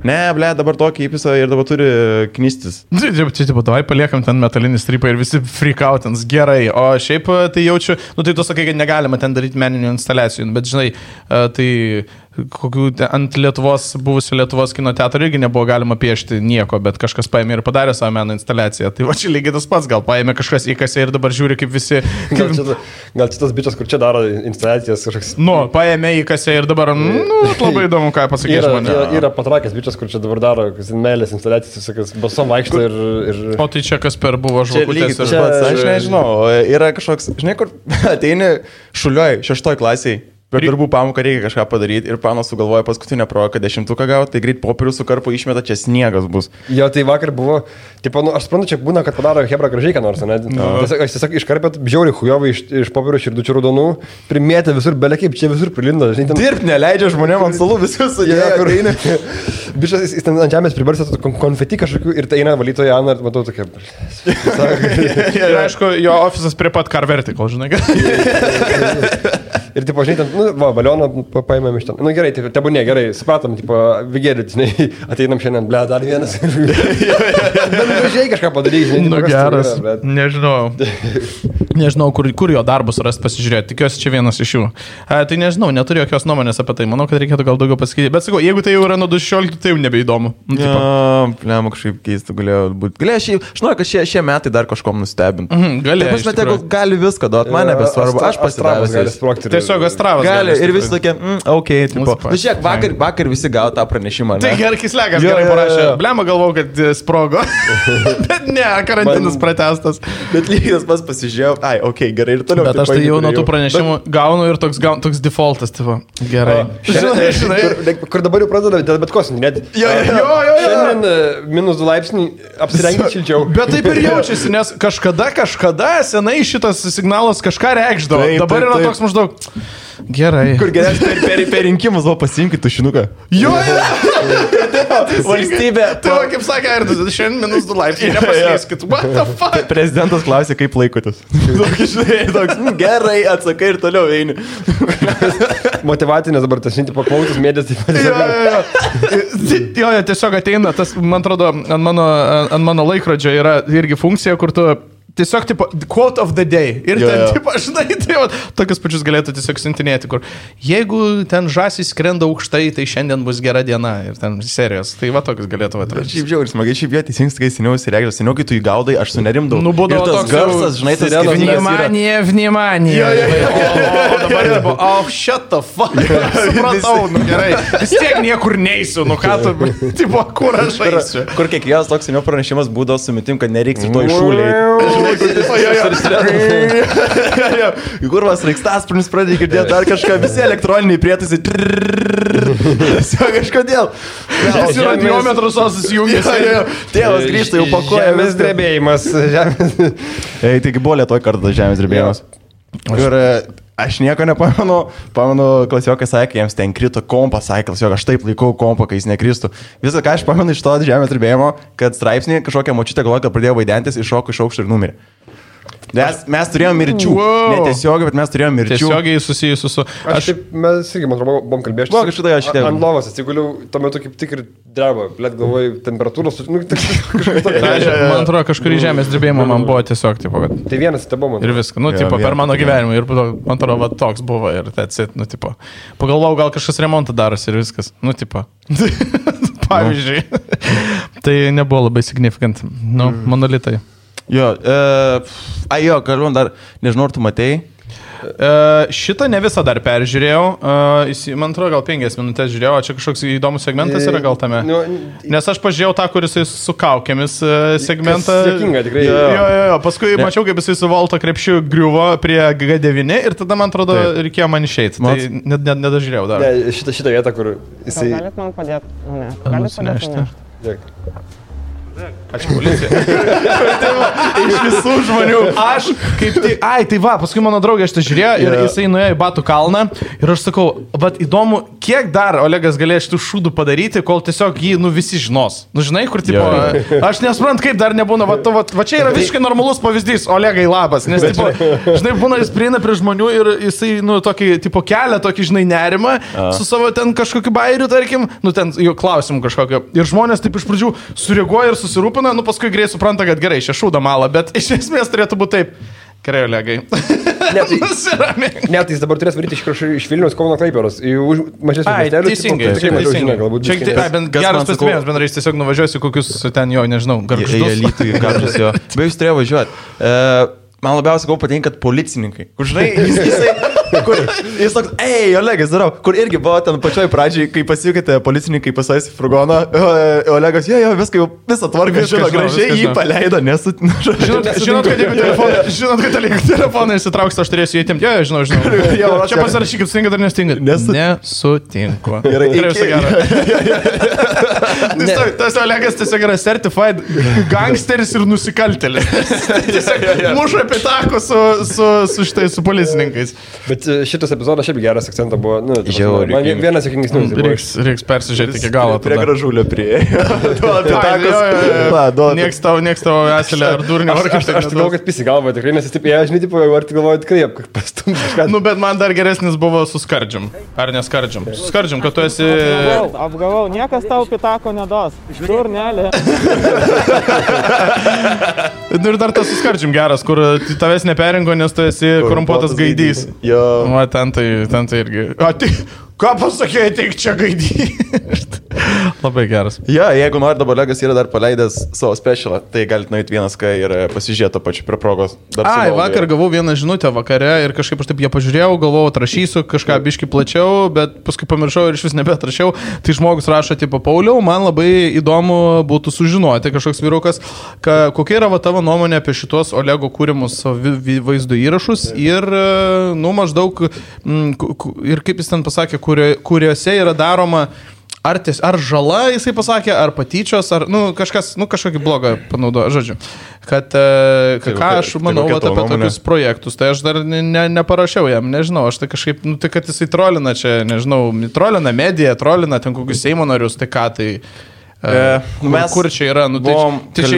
Ne, dabar tokį įpisą ir dabar turi knystis. Čia, davai paliekam ten metalinį strypą ir visi freakautins, gerai. O šiaip tai jaučiu, tai tu sakai, kad negalima ten daryti meninių instaliacijų, bet žinai, tai kokių ant buvusio Lietuvos kino teatro irgi nebuvo galima piešti nieko, bet kažkas paėmė ir padarė savo meno instaliaciją. Tai va čia lygiai tas pats, gal paėmė kažkas įkasė ir dabar žiūri, kaip visi... Gal šitas bičias, kur čia daro instaliacijas kažkoks... Paėmė įkasė ir dabar, labai įdomu, ką pasakys mane. Yra patrakęs bičias, kur čia dabar daro meilės instaliacijas, visokias basom vaikšto ir... O tai čia kas per buvo žvakutės ir pats, aš nežinau, yra kažkoks, žinai, kur ateini šulioj 6 klasiai. Per darbų pamoką reikia kažką padaryti ir panas sugalvoja paskutinę provoką 10 gauti, tai greit popierių su karpu išmeta, čia sniegas bus. Jo, tai vakar buvo, tipo, aš suprantu, čia būna, kad padaro hebra gražiai, ką nors, ne? Aš tiesiog iškarpėt žiauriai hujovai iš popierių širdučių raudonų, primėtė visur, belekiai, čia visur prilinda. Dirbt neleidžia žmonėm ant salų visus sudėjo. Bišas, jis ten ant žemės pribarsė konfeti kažkokių ir tai eina valytoja Ana ir matau tokia. Ir aišku, jo ofisas prie pat Car Vertical, žinai. Ir tipo, žinai, ten, balioną paėmėm iš ten. Gerai, tebūnė, gerai, supratom, tipo, vigėlį, žinai, ateinam šiandien, dar vienas. Bet gražiai kažką padaryti, žinai. Geras, nežinau, kur jo darbus rasti pasižiūrėti, tikiuosi čia vienas iš jų. Tai nežinau, neturiu jokios nuomonės apie tai, manau, kad reikėtų gal daugiau pasakyti. Bet sakau, jeigu tai jau yra nuo 2016, tai jau nebeįdomu. Plėma kažkaip keista galėjo būti. Aš noriu, kad šie metai dar kažkom nustebintų. Gali viską duoti, man nebesvarbu, aš pasidavęs. Tiesiog Astravas gali. Ir visi tokie, okei, tipo. Žiūrėk, vakar visi gavo tą pranešimą. Tai gerai, Kislegas gerai parašė. Blema galvau, kad sprogo. Bet ne, karantinas pratęstas. Bet lygiai tas pats pasižiūrėjau. Ai, okei, gerai ir toliau. Bet aš tai jau nuo tų pranešimų gaunu ir toks defaultas, tipo. Gerai. Žinai, kur dabar jau pradeda dėl bet kosmį, net. Jo. Šiandien -2 laipsniai apsirengti šilčiau. Bet taip ir jaučiasi, nes kažkada senai šitas signalas kažką reikšdavo. Dabar yra toks maždaug... Gerai. Kur geriausiai per rinkimus buvo pasiimkit tušinuką. Jo, Valstybė. Tai va, kaip sakė, ir šiandien -2 laipsniai, nepaslyskit. What the fuck? Prezidentas klausė, kaip laikotės. Toks, gerai, atsakai ir toliau eini. Motivacinės dabar tas šinti paklausus mėdės. Jo, tiesiog ateina, tas, man atrodo, ant mano laikrodžio yra irgi funkcija, kur tu tiesiog, tipo, quote of the day. Ir ten, tipo, žinai, tai va, tokius pačius galėtų tiesiog siuntinėti, kur jeigu ten žąsys skrenda aukštai, tai šiandien bus gera diena. Ir ten serijos. Tai va, tokius galėtų atrasti. Šiaip žiauri, smagiai, šiaip jie teisingai, kai seniau įsireikdavo, seniau, kai tu įgaudai, aš sunerimdavau. Nu, būdavo ir tas toks garsas, žinai, tas Vnimanija. O dabar jau buvo, shut the fuck. Supratau, nu gerai. Vis tiek niekur neisiu, nu ką tu, tipo, kur aš eisiu. Kur kiekvienas toks seniau pranešimas būdavo su mintim, kad nereiks ir to iššūliai. Kur vas Reikstasprinis pradėjo girdėti dar kažką, visi elektroniniai prietaisai. Kažkodėl. Jis yra diometras susijungęs. Tėvas grįžta, jau pakuoja. Žemės drebėjimas. Taigi buvo Lietuvoj kartą žemės drebėjimas. Ir aš nieko nepamenu. Pamenu, klasiokai sakė, jiems ten krito kompas, sakė, klasiokai, aš taip laikau kompą, kai jis nekristų. Visą, ką aš pamenu iš to žemės drebėjimo, kad straipsnį kažkokią močiutę galvoja, kad pradėjo vaidentis, iššoko iš aukšto ir numirė. Mes turėjome mirčių. Netiesiogiai, bet mes turėjome mirčių. Tiesiogiai susijusiu su... Mes irgi, man atrodo, buvom kalbėję. Buvo kažkada aš šitai. Ant lovos atsiguliau, tuo metu kaip tik ir dreba. Blėt, galvoju, temperatūros... Man atrodo, kažkurį žemės drebėjimą man buvo tiesiog, tipo, kad... Tai vienas tai buvo. Ir viską, nu, tipo, per mano gyvenimą. Ir man atrodo, va, toks buvo ir that's it, nu, tipo. Pagalvojau, gal kažkas remontą darosi ir viskas. Nu, tipo. Pavyzdžiui. Tai nebuvo labai significant. Nu, monolitai. Jo, kalbant dar, nežinau, ar tu matei. Šitą ne visą dar peržiūrėjau, man atrodo, gal 5 minutės žiūrėjau, čia kažkoks įdomus segmentas yra gal tame. Nes aš pažiūrėjau tą, kuris su kaukėmis segmentą. Sėkinga, tikrai. Jo, paskui mačiau, kaip jisai su Volto krepšiu griuvo prie G9 ir tada, man atrodo, reikėjo man išeiti. Tai nedažiūrėjau dar. Ne, šitą vietą, kur jisai... Galit man padėti? Ne. Nusinešti. Dėk. Ačiū, policija. Iš visų žmonių. Aš kaip tai... Tai va, paskui mano draugė aš tai žiūrėjo ir jisai nuėjo į Batų kalną ir aš sakau, bet įdomu, kiek dar Olegas galėjo šitų šūdų padaryti, kol tiesiog jį, visi žinos. Nu, žinai, kur, tipo, aš nesuprantu, kaip dar nebūna, va čia yra visiškai normalus pavyzdys, Olegai labas, nes, tipo, žinai, būna, jis prieina prie žmonių ir jisai, tokį, tipo, kelia tokį, žinai, nerimą su savo ten kažkokiu bairiu, tarkim, ten jų klausimų kažkokio. Ir žmonės taip iš pradžių sureaguoja ir susirūpina, paskui greit supranta, kad gerai, čia šūda malą, bet iš esmės turėtų būti taip. Gerai, Olegai. Ne, tai jis dabar turės varyti iš Vilniaus Kauno Klaipėdos. Mažesnius miestelius. Teisingai. Geras pasimėjimas, bendrai jis tiesiog nuvažiuosi kokius ten jo, nežinau, garžus jo. Be jūs turėjo važiuoti. Man labiausiai patinka, kad policininkai. Kur žinai, jis toks, Olegas, darau, kur irgi buvo ten pačioj pradžiai, kai pasijukite policininkai pasais į furgoną, Olegas, visą tvarką, gražiai jį paleido, nes... Žinot, kad telefoną įsitrauks, aš turėsiu įtimti, žinau. Čia pasirašykit, stinga dar nestinga. Nesutinku. Tas Olegas tiesiog yra certified gangsteris ir nusikaltėlis. Tiesiog muša pitako su policininkais. Bet šitas epizodas šiaip geras akcentas buvo. Man vienas sėkmingesnis. Reiks persižiūrėti iki galo. Prie gražulio prieėjo. Nieks tavo eselė ar durnio. Aš galvoju, kad pisi galvoju tikrai, nes jis taip, žinai, tipo, ar tik galvoju tikrai, pastumti kažką. Nu, bet man dar geresnis buvo su skardžiam. Ar neskardžiam? Su skardžiam, kad tu esi... Apgavau, niekas tau pitako nedos. Durnelė. Ir dar tas su skardžiam geras, kur tavęs neperingo, nes tu esi korumpuotas gaidys. Jo. Va, ten tai irgi. Ką pasakėjai, tik čia gaidys. Labai geras. Jeigu nori, dabar Olegas yra dar paleidęs savo specialą, tai galite nueiti vienas, kai ir pasižiūrėti to pačiu prie progos. Vakar gavau vieną žinutę vakare ir kažkaip aš taip ją pažiūrėjau, galvojau, atrašysiu kažką biški plačiau, bet paskui pamiršau ir iš vis nebeatrašiau. Tai žmogus rašo, tipo, Pauliau, man labai įdomu būtų sužinoti, kažkoks vyrukas, kokia yra tavo nuomonė apie šitos Olego kūrimus vaizdo įrašus ir, maždaug, ir kaip jis ten pasakė, kuriuose yra daroma ar žala, jisai pasakė, ar patyčios, ar, kažkokį blogą panaudojo, žodžiu. Kad, ką aš manau apie tokius projektus, tai aš dar neparašiau jam, nežinau, aš tai kažkaip, tai kad jisai trolina čia, nežinau, trolina mediją, trolina ten kokius Seimo narius, tai ką tai... Kur čia yra? Tai čia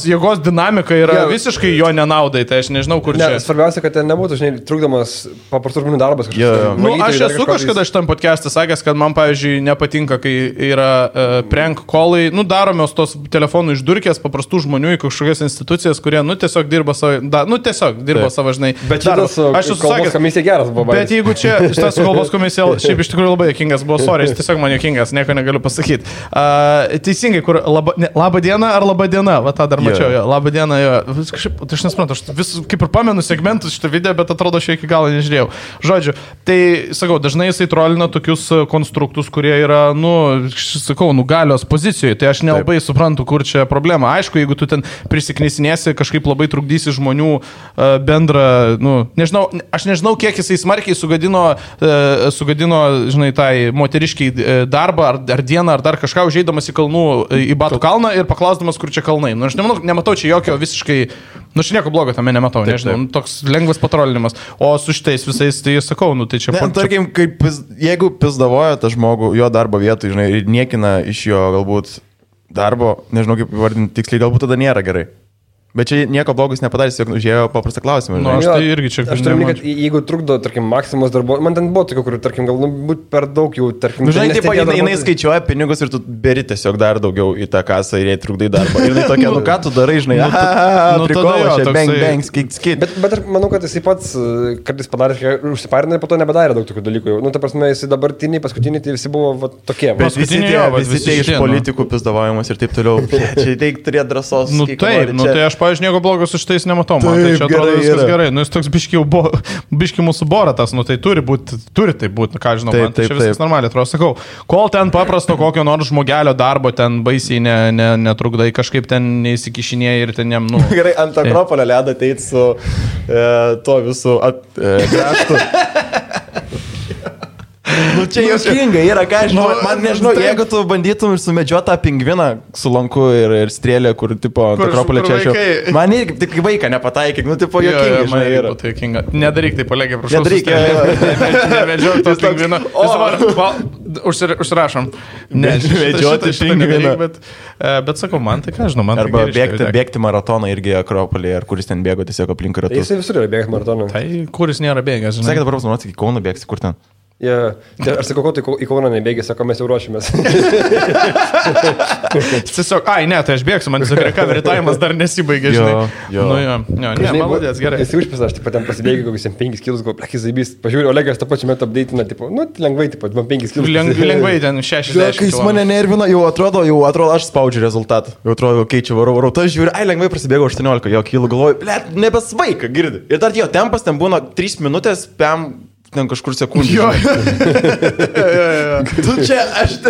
jėgos dinamika yra visiškai jo nenaudai, tai aš nežinau, kur čia. Svarbiausia, kad ten nebūtų, žinai, trukdomas paprastų žmonių darbas. Aš esu kažkada šitam podcast'e sakęs, kad man, pavyzdžiui, nepatinka, kai yra prank callai, daromos tos telefonų išdurkės paprastų žmonių į kažkokias institucijas, kurie, tiesiog dirba savo, žinai. Bet šitas kalbos komisija geras buvo. Bet jeigu čia, šitas kalbos komisija, šiaip iš tikrųjų labai jokingas buvo, sorry, jis tiesiog man jokingas, nieko negaliu pasakyti. Teisingai, kur laba diena ar laba diena, va tą dar mačiau, laba diena, kažkaip, aš nesuprantu, aš vis kaip ir pamenu segmentus šitą video, bet atrodo, aš iki galo nežiūrėjau. Žodžiu, tai, sakau, dažnai jisai trolina tokius konstruktus, kurie yra, galios pozicijoje, tai aš nelabai suprantu, kur čia problema. Aišku, jeigu tu ten prisiknisinėsi, kažkaip labai trukdysi žmonių bendrą, nežinau, aš nežinau, kiek jisai smarkiai sugadino, žinai, tai moteriškiai darbą ar dieną, ar dar kažką užeidamas į kalnų į Batų kalną ir paklausdamas, kur čia kalnai. Aš nematau čia jokio visiškai, čia nieko blogo tame nematau, nežinau, toks lengvas patrolinimas. O su šitais visais, tai sakau, tai čia... Tarkim, jeigu pizdavoja tą žmogų jo darbo vietoj, žinai, ir niekina iš jo galbūt darbo, nežinau kaip vardinti tiksliai, galbūt tada nėra gerai. Bet čia nieko blogus nepadarys, jog užėjo paprastą klausimą. Aš tai irgi čia... Aš turiu minėti, kad jeigu trukdo, tarkim, Maksimos darbo... Man ten buvo tokių, kur, tarkim, galbūt per daug jau, tarkim... Žinai, taip, jinai skaičiuoja pinigus ir tu beri tiesiog dar daugiau į tą kasą ir jai trukdai darbą. Ir jinai tokia, ką tu darai, žinai, prikolo, čia bang, skit. Bet aš manau, kad jisai pats kartais padarė, užsiparina ir po to nebedarė daug tokių dalykų. Ta prasme, jisai dabartiniai, paskutiniai, tai visi buvo tokie. Bet visi tie iš politikų pizdavavimas ir taip toliau. Čia reikia turėti drąsos. Pavyzdžiui, nieko blogo su šitais nematau, man tai čia atrodo viskas gerai. Jis toks biški mūsų boratas, tai turi tai būti, ką žinau, man tai čia viskas normaliai atrodo. Sakau, kol ten paprasto kokio nors žmogelio darbo ten baisiai netrukdai, kažkaip ten neįsikišinėjai ir ten jam, Gerai, ant Akropolio ledo ateit su to visų kraštų. Čia juokinga yra, ką aš žinau, man nežinau, jeigu tu bandytum ir sumedžiuoti tą pingviną su lanku ir strėlė, kur, tipo, Akropolė čia aš jau... Man irgi tik vaiką nepataikyk, tipo, juokinga, žinai, yra. Nedaryk tai, kolegė, prašau. Nedaryk, nemedžiuok to pingviną. Užsirašom. Medžiuoti pingviną. Bet sakau, man tai ką žinau, man tai arba bėgti maratoną irgi Akropolė, ar kuris ten bėgo tiesiog aplink ratus. Jisai visur yra bėgti maratoną. Tai kuris nėra bėgęs, žinai. Sakė dabar pasnuoti, iki Kauno bėgsi, kur ten? Aš sakau, tai į Kauną nebėgė, sako, mes jau ruošimės. Tiesiog, tai aš bėgsiu, man tiesiog recovery time'as dar nesibaigė, žinai. Maladės, gerai. Jis užpisa, aš taip ten pasibėgiu, kokius 5 kilus, gal plekis zaibys, pažiūrėjau, Olegas tą pačią metą update'ina, tipo, lengvai, tipo, 5 kilus. Lengvai ten 60. Jis mane nervina, jau atrodo, aš spaudžiu rezultatą. Jau atrodo, čia varau, tas žiūri, lengvai prasidėgo 18, jo kilų galvoju, nebesvaika, girdi. Ir dar jo tempas ten būna 3 minutės, ten kažkur sekundžių. Tu čia, aš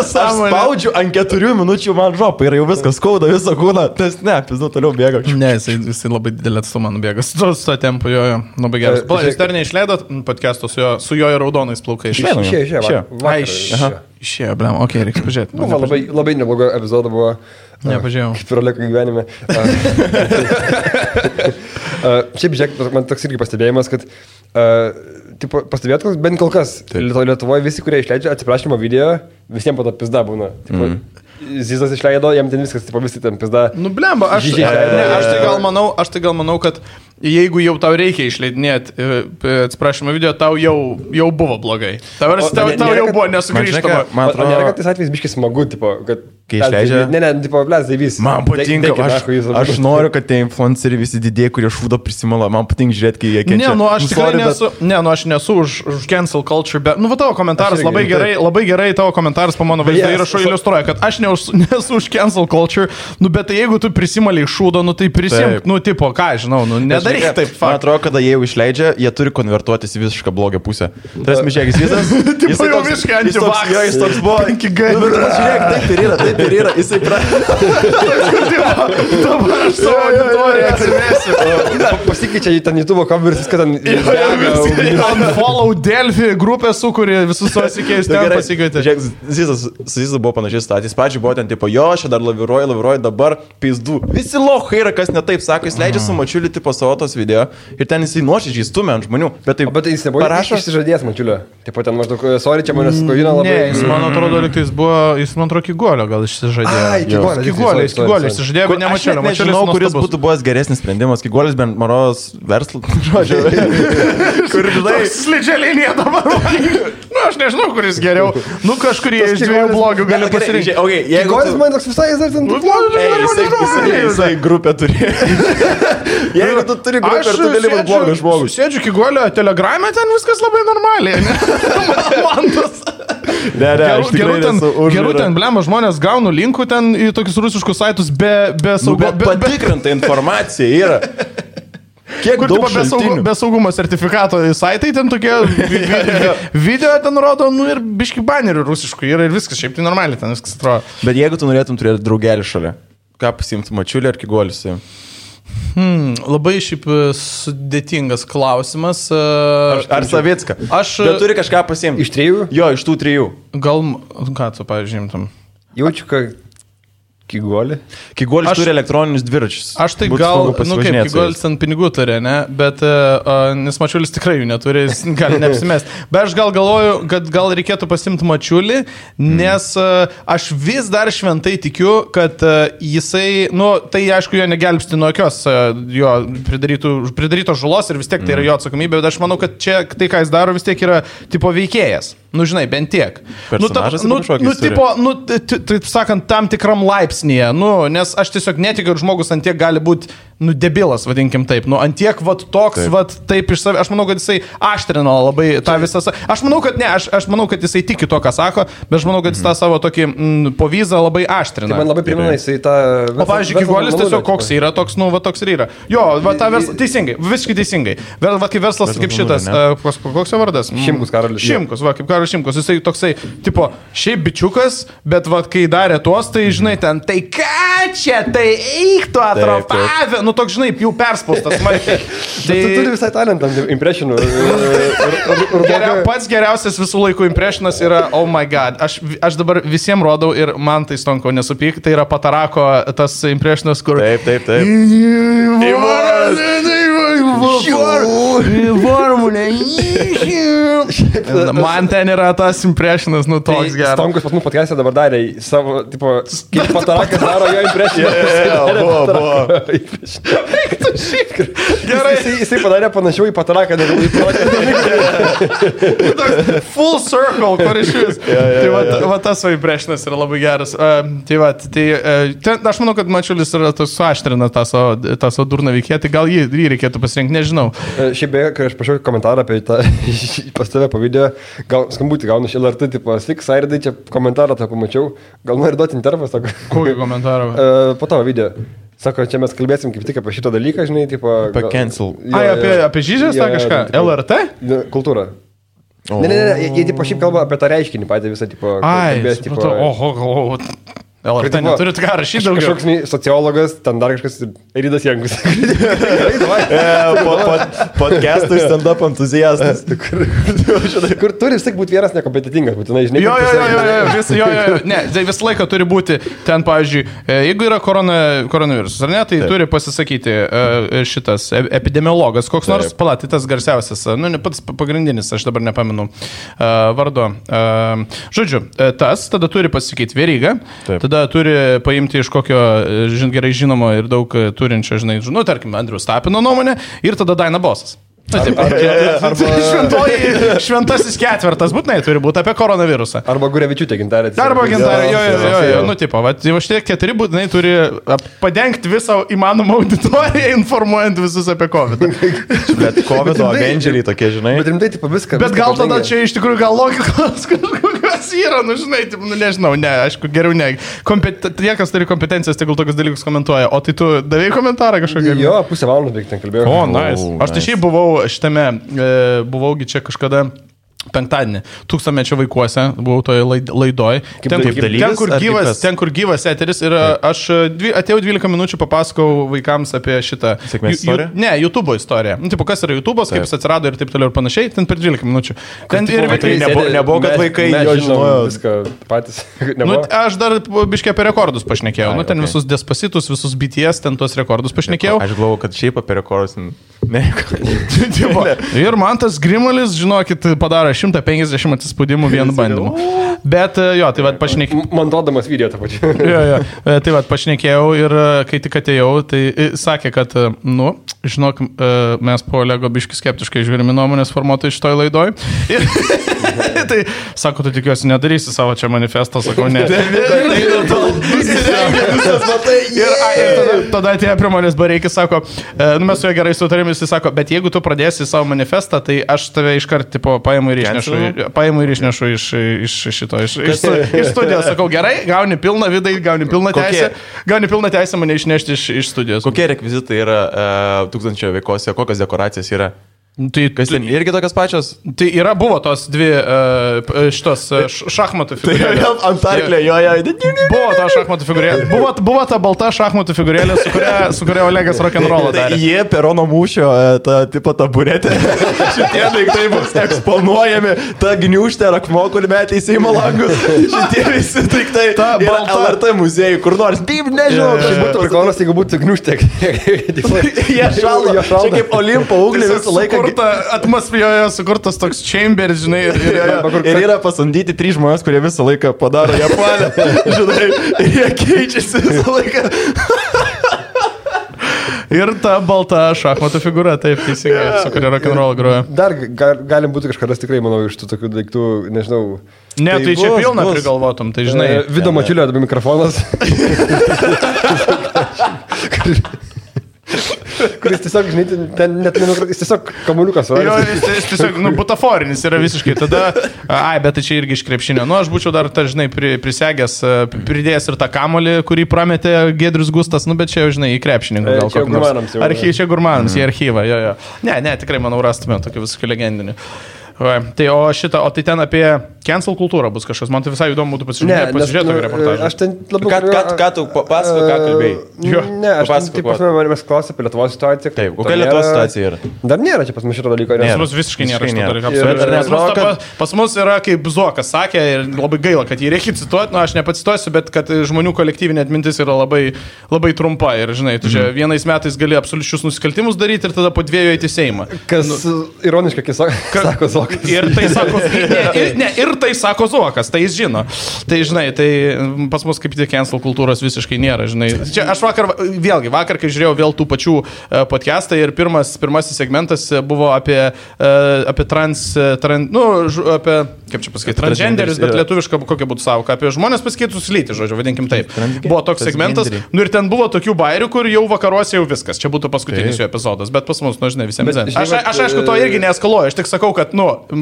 spaudžiu ant 4 minučių, man žopa ir jau viskas skauda visą kūną, tas pizdu toliau bėga. Ne, jisai labai didelį atstumą nubėga. Su to tempu, labai geras. Jūs dar neišleidot podcast'o su jo raudonais plaukais? Išėjo, blem, okei, reiks pažiūrėti. Buvo labai neblogo epizodo buvo. Nepažiūrėjau. Kaip ir Oleko gyvenime. Šiaip, žiūrėk, man toks irgi pastebėjimas, kad pastebėt, bent kol kas Lietuvoje visi, kurie išleidžia atsiprašymo video, visiems po to pizda būna. Zizas išleido, jam ten viskas, visi ten pizda. Blemba, aš tai gal manau, kad jeigu jau tau reikia išleidinėti atsiprašymą video, tau jau buvo blogai. Tau jau buvo nesugrįžtama. Man atrodo, nėra, kad tais atvejais biškis smagu, kad kai išleidžia... Man patinka, aš noriu, kad tie influenceriai visi didėjai, kurie šūdo prisimala, man patinka žiūrėti, kai jie kenčia. Aš tikrai nesu, aš nesu už cancel culture, bet, tavo komentaras labai gerai, tavo komentaras po mano vaizdo įrašo iliustruoja, kad aš nesu už cancel culture, bet tai jeigu tu prisimaliai šūdo, tai prisimk, tipo, ką žinau, nedai nedaryk taip, Man atrodo, kada jie jau išleidžia, jie turi konvertuotis į visišką blogio pusę. Tas mišėkis visas. Tipo jau visiškai antivaks. Jis toks buvo. 5G. Žiūrėk, taip ir yra. Jisai Dabar aš savo auditoriją atsimesiu. Pasikeičia į ten YouTube kamerą, viską ten... Unfollow Delphi grupę sukūrė, visus savo sikėjus ten pasikeitė. Žiūrėk, Zizas buvo panašiai statys. Pačiai buvo ten tipo, jo, aš dar laviruoju, dabar pizdu. Visi lohai yra, kas netaip sako, jis leidžia su Mačiuliu tipo savo tos video ir ten jisai nuoširdžiai stumia ant žmonių. Bet jis nebuvo išsižadėjęs Mačiulio. Taip pat ten maždaug, sorry, čia manęs skovina labai. Ne, jis man atrodo, jis man atrodo Kigolio gal išsižadėjo. Kigolio išsižadėjo, bet ne Mačiulio. Aš nežinau, kuris būtų buvęs geresnis sprendimas. Kigolis bent Maros verslo. Kur žinai, slidžia linija dabar. Nu, aš nežinau, kuris geriau. Nu, kažkurį iš dviejų blogių gali pasirinkti. Kigolis man toks visai, jisai grupę turi. Jeigu tu turi grupę ir tu gali būti blogas žmogus. Sėdžiu Kigolio telegrame, ten viskas labai normaliai. Man tas... Gerų ten, blema, žmonės gauna linkų ten į tokius rusiškus saitus be saugumo. Bet patikrinta informacija yra. Kiek daug be saugumo sertifikato saitai ten tokie video ten rodo, nu ir biški banerių rusiškų yra ir viskas, šiaip tai normaliai ten viskas atrodo. Bet jeigu tu norėtum turėti draugelį šalia, ką pasiimti, Mačiulį ar Kigolį? Labai šiaip sudėtingas klausimas. Ar Savicką? Bet turi kažką pasiimti. Iš 3? Jo, iš tų 3. Gal, ką tu pažymtum? Jaučiu, kad Kigolį. Kigolis turi elektroninius dviračius. Aš tai gal, nu kaip, Kigolis ant pinigų turi, ne? Bet, nes Mačiulis tikrai jų neturi, jis gali neapsimest. Bet aš gal galvoju, kad gal reikėtų pasimti Mačiulį, nes aš vis dar šventai tikiu, kad jisai, nu, tai aišku, jo negelbsti nuo jokios jo pridarytos žalos ir vis tiek tai yra jo atsakomybė, bet aš manau, kad čia tai, ką jis daro, vis tiek yra tipo veikėjas. Nu, žinai, bent tiek. Taip sakant, tam tikram laipsnėje. Nu, nes aš tiesiog netikiu, kad žmogus ant tiek gali būti, nu, debilas, vadinkim taip. Nu, ant tiek, vat, toks, vat, taip iš savęs. Aš manau, kad jisai aštrino labai tą visą... Aš manau, kad ne, aš manau, kad jisai tiki to, ką sako, bet aš manau, kad jis tą savo tokį povyzą labai aštrina. Tai man labai primena jisai tą... O, pavyzdžiui, Kigolis tiesiog koks yra, toks, nu, va, toks ir yra. Jo, va, tą verslą... Teisingai, visiškai teisingai. Va, kaip verslas, kaip šitas... Koks jo vardas? Šimkus, Karolis. Šimkus, va, kaip Karolis Šimkus. Jisai toksai, tipo, šiaip bičiukas, bet, va, kai darė tuos, tai, žinai, ten, tai ką čia, tai eik tu atrofavę. Nu, toks, žinai, jau perspaustas smarkiai. Tai tu turi visai talentą, impressionų. Pats geriausias visų laikų impressionas yra, oh my god, aš dabar visiems rodau ir man tai stonko nesupyk, tai yra Patarako tas impressionas, kur... Taip. Formulė. Man ten yra tas impressionas, nu toks geras. Stonkus pas mūsų podcast'e dabar darė savo, tipo, kaip Patarakas daro jo impressioną. Buvo. Gerai. Jisai padarė panašiau į Pataraką, negu į Pataraką. Full circle, kur iš vis. Tai va tas savo impressionas yra labai geras. Tai va, aš manau, kad Mačiulis yra suaštrina tą savo durną veikėją, tai gal jį reikėtų pasirinkti, nežinau. Šiaip beje, kai aš pašiau komentarą apie tą pas tave po video, gal skambutį gaunu iš LRT, tipo, sik, Sairidai, čia komentarą tą pamačiau, gal nori duoti intervą, sako. Kokį komentarą? Po tavo video. Sako, čia mes kalbėsim kaip tik apie šitą dalyką, žinai, tipo... Apie cancel. Apie žyžės, tą kažką? LRT? Kultūrą. Ne, jie tipo šiaip kalba apie tą reiškinį patį visą, tipo... LRT neturit ką rašyti daugiau. Kažkoks sociologas, ten dar kažkas Rydas Jankus. Podcastų ir stand-up entuziastas. Kur turi vis tik būti vienas nekompetitingas, būtinai, žinai. Jo. Ne, tai visą laiką turi būti ten, pavyzdžiui, jeigu yra koronavirusas, ar ne, tai turi pasisakyti šitas epidemiologas, koks nors, tai tas garsiausias, nu, ne pats pagrindinis, aš dabar nepamenu vardo. Žodžiu, tas tada turi pasisakyti Veryga. Tada turi paimti iš kokio gerai žinomo ir daug turinčio, žinai, nu, tarkim, Andriaus Tapino nuomonę ir tada Daina Bosas. Šventasis ketvirtas būtinai turi būti apie koronavirusą. Arba Gurevičiūtė gintarė. Arba gintarė, jo. Nu, tipo, va, šitie 4 būtinai turi padengti visą įmanomą auditoriją, informuojant visus apie COVID. Bet COVID Avengeriai tokie, žinai. Bet rimtai, tipo, viską. Bet gal tada čia iš tikrųjų gal logikos kažkokios yra, nu, žinai, tipo, nu, nežinau, ne, aišku, geriau ne. Tie, kas turi kompetencijas, tegul tokius dalykus komentuoja. O tai tu davėjai komentarą kažkokį? Jo, pusę valandos beveik ten kalbėjau. O, nice. Aš tai šiaip buvau šitame, buvaugi čia kažkada penktadienį, 1000-mečio vaikuose, buvau toje laidoj. Ten, kur gyvas eteris ir aš atėjau 12 minučių, papasakau vaikams apie šitą YouTube istoriją. Nu, tipo, kas yra YouTube'as, kaip jis atsirado ir taip toliau ir panašiai, ten per 12 minučių. Ten ir nebuvo, kad vaikai jo žinojo viską patys. Nu, aš dar biškai apie rekordus pašnekėjau. Nu, ten visus Despacitus, visus BTS, ten tuos rekordus pašnekėjau. Aš galvoju, kad šiaip apie rekordus Ir man tas Grimalis, žinokit, padaro 150 atsispaudimų vienu bandymu. Bet jo, tai vad pašnekėjau. Montuodamas video tą pačią. Jo. Tai vad pašnekėjau ir kai tik atėjau, tai sakė, kad, nu, žinok, mes po Olego biškai skeptiškai žiūrime nuomonės formuotojai šitoj laidoj. Tai sako, tu tikiuosi nedarysi savo čia manifestą, sakau, ne. Ir tada atėjo prie manęs Bareikis, sako, nu mes su juo gerai sutarėm, jis sako, bet jeigu tu pradėsi savo manifestą, tai aš tave iškart tipo paimu ir išnešu iš studijos. Sakau, gerai, gauni pilną vidai, gauni pilną teisę mane išnešti iš studijos. Kokie rekvizitai yra 1000 veikose, kokios dekoracijas yra? Tai kas ten irgi tokios pačios? Tai buvo tos dvi šitos šachmatų figūrėlės. Tai ant arklio, jo. Buvo ta šachmatų figūrėlė. Buvo ta balta šachmatų figūrėlė, su kuria Olegas rock'n'rollą darė. Jie perono mūšio, ta tipo taburetė. Šitie daiktai bus eksponuojami, ta gniūžtė ir akmuo, kur metė į Seimo langus. Šitie visi daiktai yra LRT muziejai, kur nors. Taip, nežinau. Tai būtų prikolas, jeigu būtų gniūžtė. Jie šaldo. Čia kaip Olimpo ugnį visą laiką. Atmosferoje sukurtas toks chambers, žinai. Ir yra pasamdyti 3 žmonės, kurie visą laiką padaro Japonę. Žinai, ir jie keičiasi visą laiką. Ir ta balta šachmatų figūra, taip, teisingai, su kuria rock'n'roll groja. Dar galim būti kažkada tikrai, manau, iš tų tokių daiktų, nežinau. Ne, tai čia pilna prigalvotum, tai žinai. Vido Mačiulio arba mikrofonas. Kuris tiesiog, žinai, ten net jis tiesiog kamuoliukas. Jo, jis tiesiog, butaforinis yra visiškai. Tada, bet tai čia irgi iš krepšinio. Aš būčiau dar, žinai, prisegęs, pridėjęs ir tą kamuolį, kurį prametė Giedrius Gustas, bet čia jau, žinai, į krepšinį. Čia gurmanams jau. Čia gurmanams, į archyvą, jo. Ne, tikrai, manau, rastume tokį visiškai legendinį. Tai o tai ten apie cancel kultūrą bus kažkas. Man tai visai įdomu būtų pasižiūrėti tokį reportažą. Aš ten labiau... Ką tu pasakoji, ką kalbėjai? Ne, aš ten, taip pasme, manęs klausė apie Lietuvos situaciją. Taip, kokia Lietuvos situacija yra? Dar nėra čia pas mus šito dalyko. Pas mus visiškai nėra šito dalyko. Pas mus yra, kaip Zuokas sakė, ir labai gaila, kad jį reikia cituoti. Aš nepacituosiu, bet kad žmonių kolektyvinė atmintis yra labai, labai trumpa. Ir, žinai, tu čia vienais metais gali absoliučius nusikaltimus daryti ir tada po 2 eiti į Seimą. Kas ironiškai, kai sako Zuokas. Ir tai sako Zuokas, tai jis žino. Tai, žinai, tai pas mus kaip tik cancel kultūros visiškai nėra, žinai. Čia aš vakar, kai žiūrėjau vėl tų pačių podcastą ir pirmasis segmentas buvo apie apie, kaip čia pasakyti, transgenderis, bet lietuviška kokia būtų savoka, apie žmonės pasikeitus lytį, žodžiu, vadinkim taip. Buvo toks segmentas, ir ten buvo tokių bairių, kur jau vakaruose jau viskas, čia būtų paskutinis jo epizodas, bet pas mus, žinai, visiems zin. Aš aišku, to irgi neeskaluoju, aš tik sakau, kad,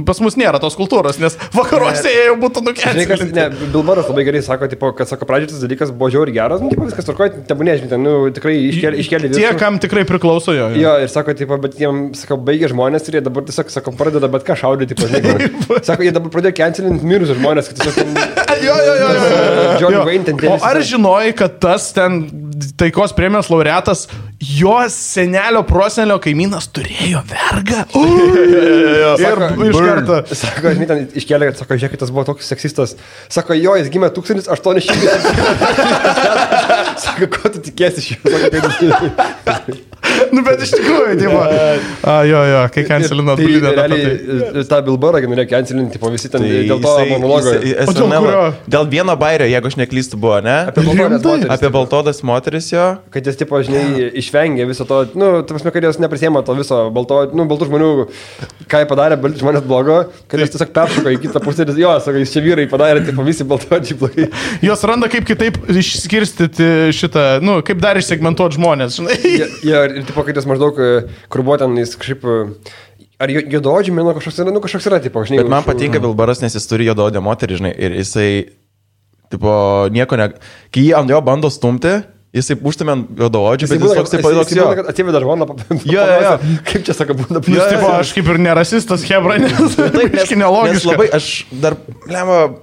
pas mus nėra tos kultūros, nes vakaruose jie jau būtų nukelti. Ne, Bilbaras labai gerai sako, kad sako, pradžioje tas dalykas buvo žiauriai geras, viskas tvarkoja, tebūnė, žinai, tikrai iškėlė viską. Tie, kam tikrai priklauso jo. Jo, ir sako, bet jiems, sako, baigė žmonės ir jie dabar tiesiog, sako, pradeda bet ką šaudyti, žinai. Sako, jie dabar pradėjo cancelinti mirusius žmonės, kad tiesiog... Jo. O ar žinojai, kad tas ten taikos premijos laureatas, jos senelio prosenelio kaimynas turėjo vergą? Ir iš karto. Sako, žinai, ten iškėlė, kad, sako, žiūrėk, tas buvo toks seksistas. Sako, jo, jis gimė 1800. Sako, ko tu tikėsi iš jo? Nu, bet iš tikrųjų, tipo. Jo, kai cancelino atbulydė. Realiai tą Bilbarą norėjo cancelinti, tipo visi ten dėl to monologo. Dėl vieno bairio, jeigu aš neklystu, buvo, ne? Apie baltodas moteris jo. Kad jis, tipo, žinai, išvengė viso to, nu, ta prasme, kad jos neprisėmė to viso baltų žmonių, ką jie padarė, žmonės blogo, kad jis tiesiog peršoko į kitą pusę ir jo, sako, jis čia vyrai padarė, tipo, visi baltodžiai blogai. Jos randa kaip kitaip išskirstyti šitą, nu, kaip dar išsegmentuoti žmonės, žinai. Ir tipo, kad jis maždaug, kur buvo ten, jis kažkaip, ar juodaodžiai, manau, kažkoks yra, tipo, žinai. Bet man patinka Bilbaras, nes jis turi juodaodę moterį, žinai, ir jisai, tipo, nieko ne... Kai jį ant jo bando stumti, jisai užtumė juodaodžių, bet jis toks, toks jo. Atsiveda žmoną, jo. Kaip čia sako, būna plus. Tipo, aš kaip ir nerasistas, hebra, nes tai nelogiška. Labai, aš dar,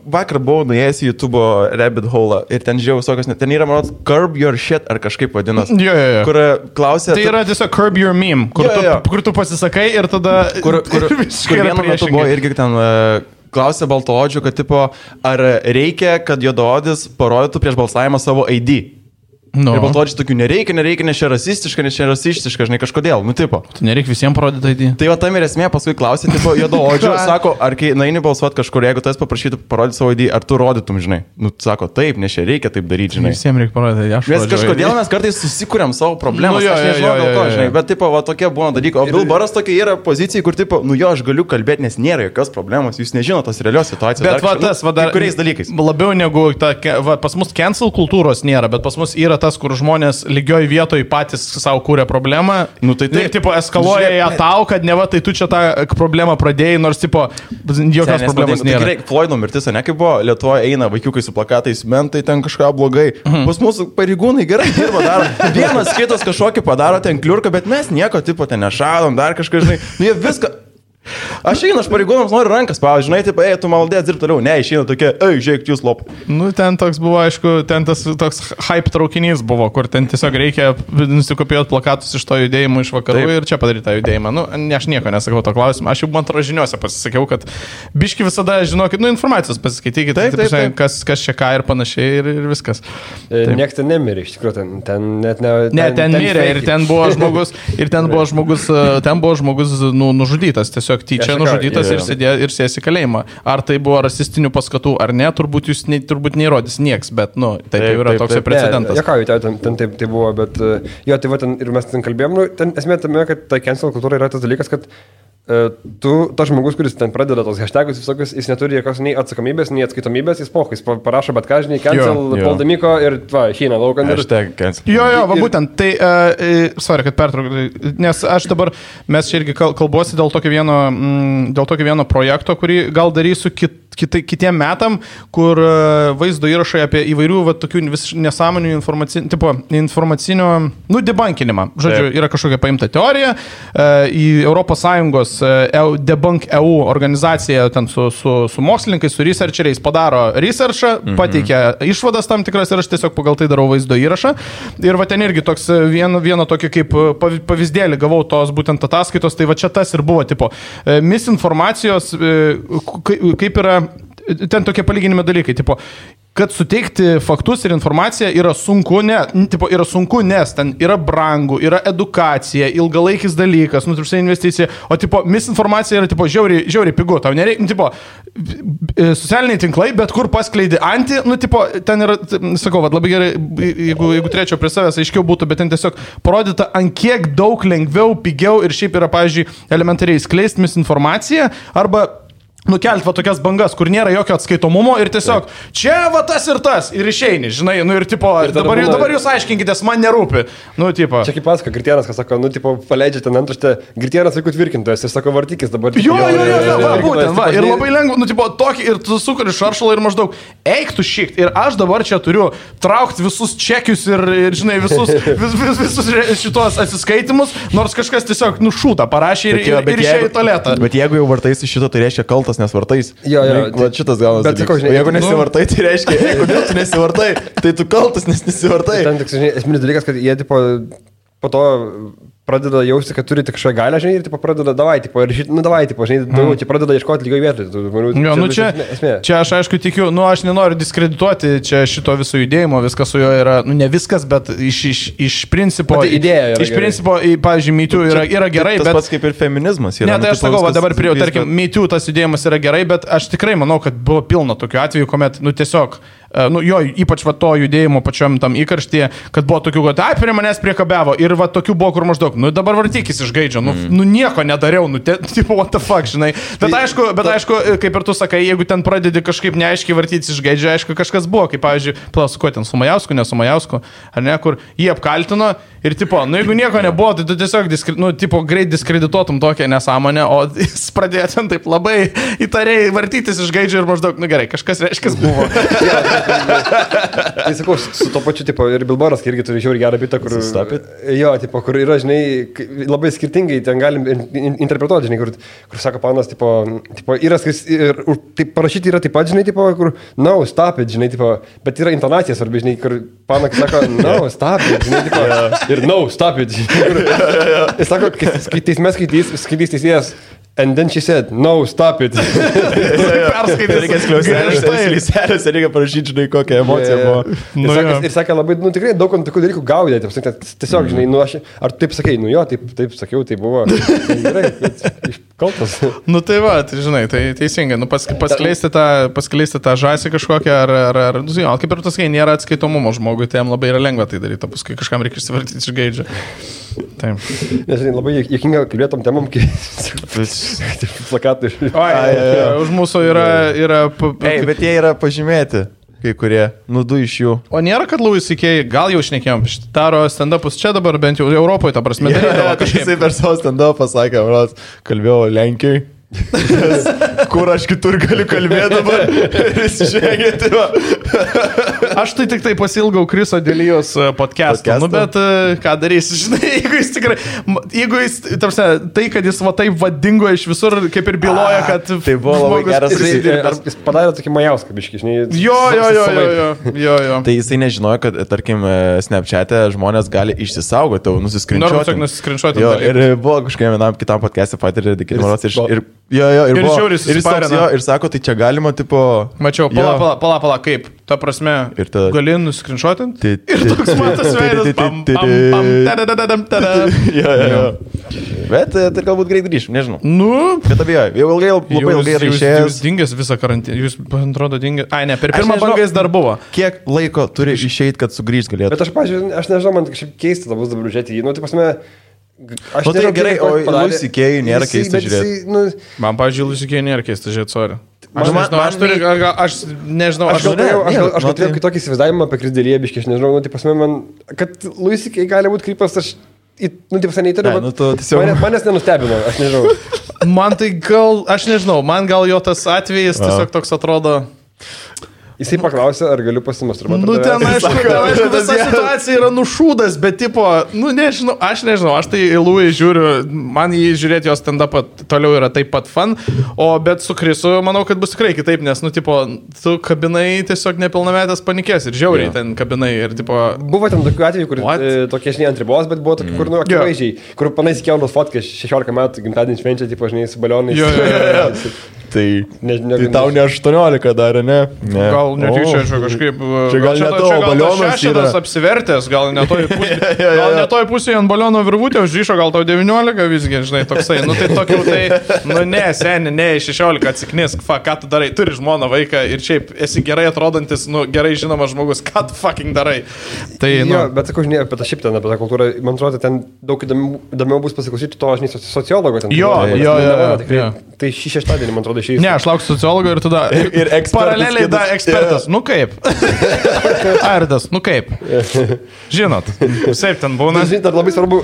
vakar buvau nuėjęs į YouTube rabbit hole ir ten žiūrėjau visokios, ten yra, manot, curb your shit ar kažkaip vadinas. Jo. Kur klausė... Tai yra tiesiog curb your meme, kur tu pasisakai ir tada... Kur vienu metu buvo irgi ten... Klausė baltoodžių, kad tipo, ar reikia, kad juodaodis parodytų prieš balsavimą savo ID. No. Ir baltoodžiai tokių nereikia, nes čia rasistiška, žinai, kažkodėl, nu tipo. Tu nereikia visiems parodyti ID. Tai va tam ir esmė, paskui klausė, tipo, juodaodžių, sako, ar kai naini balsuoti kažkur, jeigu tas paprašytų parodyti savo ID, ar tu rodytum, žinai. Nu, sako, taip, nes čia reikia taip daryti, žinai. Visiems reikia parodyti, aš rodžiu. Nes kažkodėl mes kartais susikūrėm savo problemas, aš nežinau dėl ko, žinai, bet tipo, va tokie būna dalykai. O Bilbaras tokia yra pozicija, kur tipo, nu jo, aš galiu kalbėti, nes nėra jokios problemos, jūs nežinote tos realios situacijos. Bet va tas, va dar kuriais dalykais. Labiau negu ta, va, pas mus cancel kultūros nėra, bet pas mus yra tas, kur žmonės lygioj vietoj patys savo kūrė problemą. Nu, tai tipo eskaluoja ją tau, kad ne va, tai tu čia tą problemą pradėjai, nors tipo jokios problemos nėra. Tikrai, Floydo mirtis, ne kaip buvo, Lietuvoje eina vaikiukai su plakatais, mentai ten kažką blogai. Pas mūsų pareigūnai gerai dirba, daro. Vienas kitas kažkokį padaro ten kliurką, bet mes nieko tipo ten nešalom, dar kažką, žinai. Nu jie viską... Aš einu, aš pareigūnams noriu rankas, pavyzdžiui, žinai, taip, tu maldės dirbti toliau, ne, išeina tokie, žiūrėk, jūs lop. Nu, ten toks buvo, aišku, ten tas toks hype traukinys buvo, kur ten tiesiog reikia nusikopijuoti plakatus iš to judėjimo iš vakarų taip. Ir čia padaryti tą judėjimą. Nu, aš nieko nesakau to klausimą, aš jau man atrodo žiniuose pasisakiau, kad biški visada žinokit, nu, informacijos pasiskaitykit, taip. Kas čia ką ir panašiai ir viskas. Niekas ten nemirė, iš tikrųjų, ten net ne... Ne, ten mirė ir ten buvo žmogus, nužudytas, tiesiog tyčia nužudytas ir sės į kalėjimą. Ar tai buvo rasistinių paskatų ar ne, turbūt jūs turbūt neįrodys nieks, bet, nu, tai yra toks precedentas. Ten taip buvo, bet jo, tai va, ten, ir mes ten kalbėjom, nu, ten esmė tame, kad ta cancel kultūra yra tas dalykas, kad tas žmogus, kuris ten pradeda tos hashtagus visokius, jis neturi jokios nei atsakomybės, nei atskaitomybės, jis parašo bet ką, žinai, cancel, Poldamiko ir šyna laukan. Jo, va būtent, tai, sorry, kad pertraukiu, nes aš dabar, mes čia irgi kalbuosi dėl tokio vieno projekto, kurį gal darysiu kitiem metam, kur vaizdo įrašai apie įvairių va, tokių nesąmonių informacinio, nu, debunkinimą. Žodžiu, yra kažkokia paimta teorija, į ES Debunk EU organizacija ten su mokslininkais, su researcheriais padaro researchą, pateikia išvadas tam tikras ir aš tiesiog pagal tai darau vaizdo įrašą. Ir va ten irgi toks vieno tokio kaip pavyzdėlį gavau tos būtent ataskaitos, tai va čia tas ir buvo, tipo, misinformacijos, kaip yra, ten tokie palyginimi dalykai, tipo, kad suteikti faktus ir informaciją yra sunku, yra sunku, nes ten yra brangu, yra edukacija, ilgalaikis dalykas, investicija, o tipo, misinformacija yra tipo, žiauriai pigu, tau nereikia, tipo, socialiniai tinklai, bet kur paskleidi tipo, ten yra, sakau, va, labai gerai, jeigu turėčiau prie savęs, aiškiau būtų, bet ten tiesiog parodyta, ant kiek daug lengviau, pigiau ir šiaip yra, pavyzdžiui, elementariai skleisti misinformaciją, arba nukelt va tokias bangas, kur nėra jokio atskaitomumo ir tiesiog čia va tas ir išeini, žinai, nu ir tipo, ir dabar jūs aiškinkitės, man nerūpi. Nu, tipo. Čia kaip pasako, Gritienas, kas sako, nu, tipo, paleidžia ten antraštę, Gritienas vaikų tvirkintojas ir sako, vartykis dabar. Jo, būtent, va, ir labai lengva, nu, tipo, tokį, ir tu sukuri šaršalą ir maždaug, eik tu šikt, ir aš dabar čia turiu traukti visus čekius ir žinai, visus šitos atsiskaitimus, nors kažkas tiesiog nušūta, parašė ir išėjo į tualetą. Bet jeigu jau vartaisi šito, tai reiškia kaltas nesvartais. Jo. Va, šitas gaunas. Bet sakau, žinai, jeigu nesivartai, tai reiškia, kodėl tu nesivartai, tai tu kaltas, nes nesivartai. Ten tik, žinai, esminis dalykas, kad jie, tipo, po to pradeda jausti, kad turi tik kažkokią galę, žinai, ir tipo, pradeda davai, tipo, ir davai, tipo, žinai, daugiau, čia pradeda ieškoti lygiai vietoj. Čia aš aišku tikiu, aš nenoriu diskredituoti čia šito viso judėjimo, viskas su juo yra, ne viskas, bet iš principo, idėja iš principo, pavyzdžiui, MeToo yra gerai, tas bet... pats kaip ir feminizmas. Ne, tai aš sakau, dabar prie, tarkim, MeToo tas judėjimas yra gerai, bet aš tikrai manau, kad buvo pilna tokių atvejų, kuomet, tiesiog... jo, ypač va to judėjimo pačiam tam įkarštyje, kad buvo tokių, kad prie manęs priekabiavo ir va tokių buvo, kur maždaug, dabar vartykis iš gaidžio, nieko nedariau, tipo, what the fuck, žinai. Bet aišku, kaip ir tu sakai, jeigu ten pradedi kažkaip neaiškiai vartytis iš gaidžio, aišku, kažkas buvo, kaip, pavyzdžiui, su kuo ten, su Majausku, ne su Majausku, ar ne, kur jį apkaltino ir, tipo, jeigu nieko nebuvo, tai tu tiesiog, tipo, greit diskredituotum tokią nesąmonę, o jis pradėjo ten taip labai įtariai vartytis iš gaidžio ir maždaug, gerai, kažkas reiškia buvo. Tai sakau, su to pačiu, tipo, ir Bilboras irgi turi žiauriai gerą bitą, kur... Jo, tipo, kur yra, žinai, labai skirtingai ten galim interpretuoti, žinai, kur sako panas, tipo yra, ir taip parašyti yra taip pat, žinai, tipo, kur, no, stop it, žinai, tipo, bet yra intonacija svarbi, žinai, kur panas sako, no, stop it, žinai, tipo, ir no, stop it, žinai, jis sako, kai teisme skaitys teisėjas, and then she said, no, stop it. Perskaitė, reikia skliauselės, reikia parašyti, žinai, kokią emociją buvo. Ir sakė labai, tikrai daug tokių dalykų gaudė, tiesiog, žinai, ar taip sakai, jo, taip sakiau, tai buvo. Gerai, kaltas. Tai va, tai žinai, tai teisingai, paskleisti tą žąsį kažkokią, ar kaip ir tu sakai, nėra atskaitomumo žmogui, tai jam labai yra lengva tai daryti, paskui kažkam reikia išsivartyti iš gaidžio. Taip. Nes, žinai, labai jėkinga kalbėtom temam, kai plakatai. Už mūsų yra... Bet jie yra pažymėti, kai kurie, du iš jų. O nėra, kad Louis C.K. gal jau šnekėjom, daro stand-upus čia dabar, bent jau Europoje, ta prasme, darydavo kažkaip. Jisai per savo stand-upą pasakė, kalbėjau Lenkijai. Kur aš kitur galiu kalbėti dabar ir įsižengėti. Aš tai tik tai pasilgau Kriso Delijos podcast'o, bet ką darysi, žinai, jeigu jis, tai, kad jis va taip vadingo iš visur, kaip ir byloja, kad... Tai buvo labai geras jis padarė tokį Majauską biškį, žinai. Jo. Tai jisai nežinojo, kad, tarkim, Snapchat'e žmonės gali išsisaugoti, nusiskrinčiuoti. Ir buvo kažkokiam vienam kitam podcast'e patyrė Dikinimaros ir sako, tai čia galima, tipo... Mačiau, pala, kaip, ta prasme, gali nuskrinšuotinti ir toks matas veidas. Bet tai galbūt greit grįžim, nežinau. Bet abiejau, labai ilgai išėjęs. Jūs dingęs visą karantiną, jūs, man atrodo, dingęs. Ne, per pirmą bangą jis dar buvo. Kiek laiko turi išeiti, kad sugrįžt galėtų? Bet aš nežinau, man kažkaip keista dabar žiūrėti jį, tai pasme... Aš nežinau, gerai, o Louis C.K. nėra keista žiūrėti. Man, pavyzdžiui, Louis C.K. nėra keista žiūrėti, sorry. Aš nežinau, aš turėjau kitokį įsivaizdavimą apie Krisdėlėje, biškai, aš nežinau, tai pasme man, kad Louis C.K. gali būti krypas, aš, tai pasme neįtariu, manęs nenustebino, aš nežinau. Man tai gal, aš nežinau, man gal jo tas atvejis tiesiog toks atrodo... Jisai paklausė, ar galiu pasimasturbuoti. Ten aišku, visa situacija yra nušūdas, bet tipo, nežinau, aš tai į Louis žiūriu, man jį žiūrėti jos stand-upą toliau yra taip pat fun, bet su Krisu manau, kad bus tikrai kitaip, nes, tipo, tu kabinai tiesiog nepilnametės panikės ir žiauriai ten kabinai ir tipo... Buvo ten tokių atvejų, kur tokie, žinai, ant ribos, bet buvo tokių, kur, akivaizdžiai, kur panais įkėlos fotkas 16 metų gimtadienį švenčia, tipo, žinai, su balionais. Tai tau ne 18 darė, ne? Gal netyčia kažkaip... Čia gal ne to balionas yra. Apsivertęs, gal ne toj pusėje ant baliono virvutė užryšo, gal tau 19 visgi, žinai, toksai. Tai tokių, tai, ne, seni, ne, 16 atsiknisk, ką tu darai, turi žmoną, vaiką ir šiaip esi gerai atrodantis, gerai žinomas žmogus, ką tu fucking darai. Tai, bet sakau, žinai, apie tą šiaip ten, apie tą kultūrą, man atrodo, ten daug įdomiau bus pasiklausyti to, žinai, sociologo ten. Tai šį šeštadienį, man atrodo, išėjus. Ne, aš lauksiu sociologo ir tada ir paraleliai da ekspertas. Kaip? Ardas, kaip? Žinot, taip ten būna. Žinai, dar labai svarbu,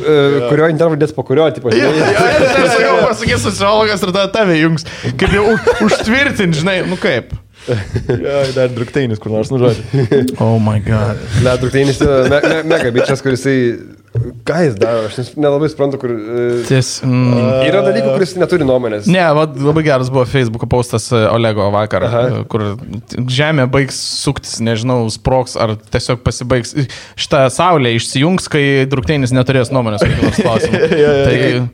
kurio intervą dės po kurio, tipo, žinai. Tai sakau, pasakys sociologas ir tada tave jungs. Kaip jau užtvirtint, žinai, kaip? Dar Drukteinis, kur nors nužodžiu. Oh my god. Drukteinis yra mega bičias, kuris ką jis daro, aš nelabai suprantu, kur... Yra dalykų, kuris neturi nuomonės. Ne, labai geras buvo Facebook'o postas Olego vakar, kur žemė baigs suktis, nežinau, sproks ar tiesiog pasibaigs. Šitą saulę išsijungs, kai Drukteinis neturės nuomonės.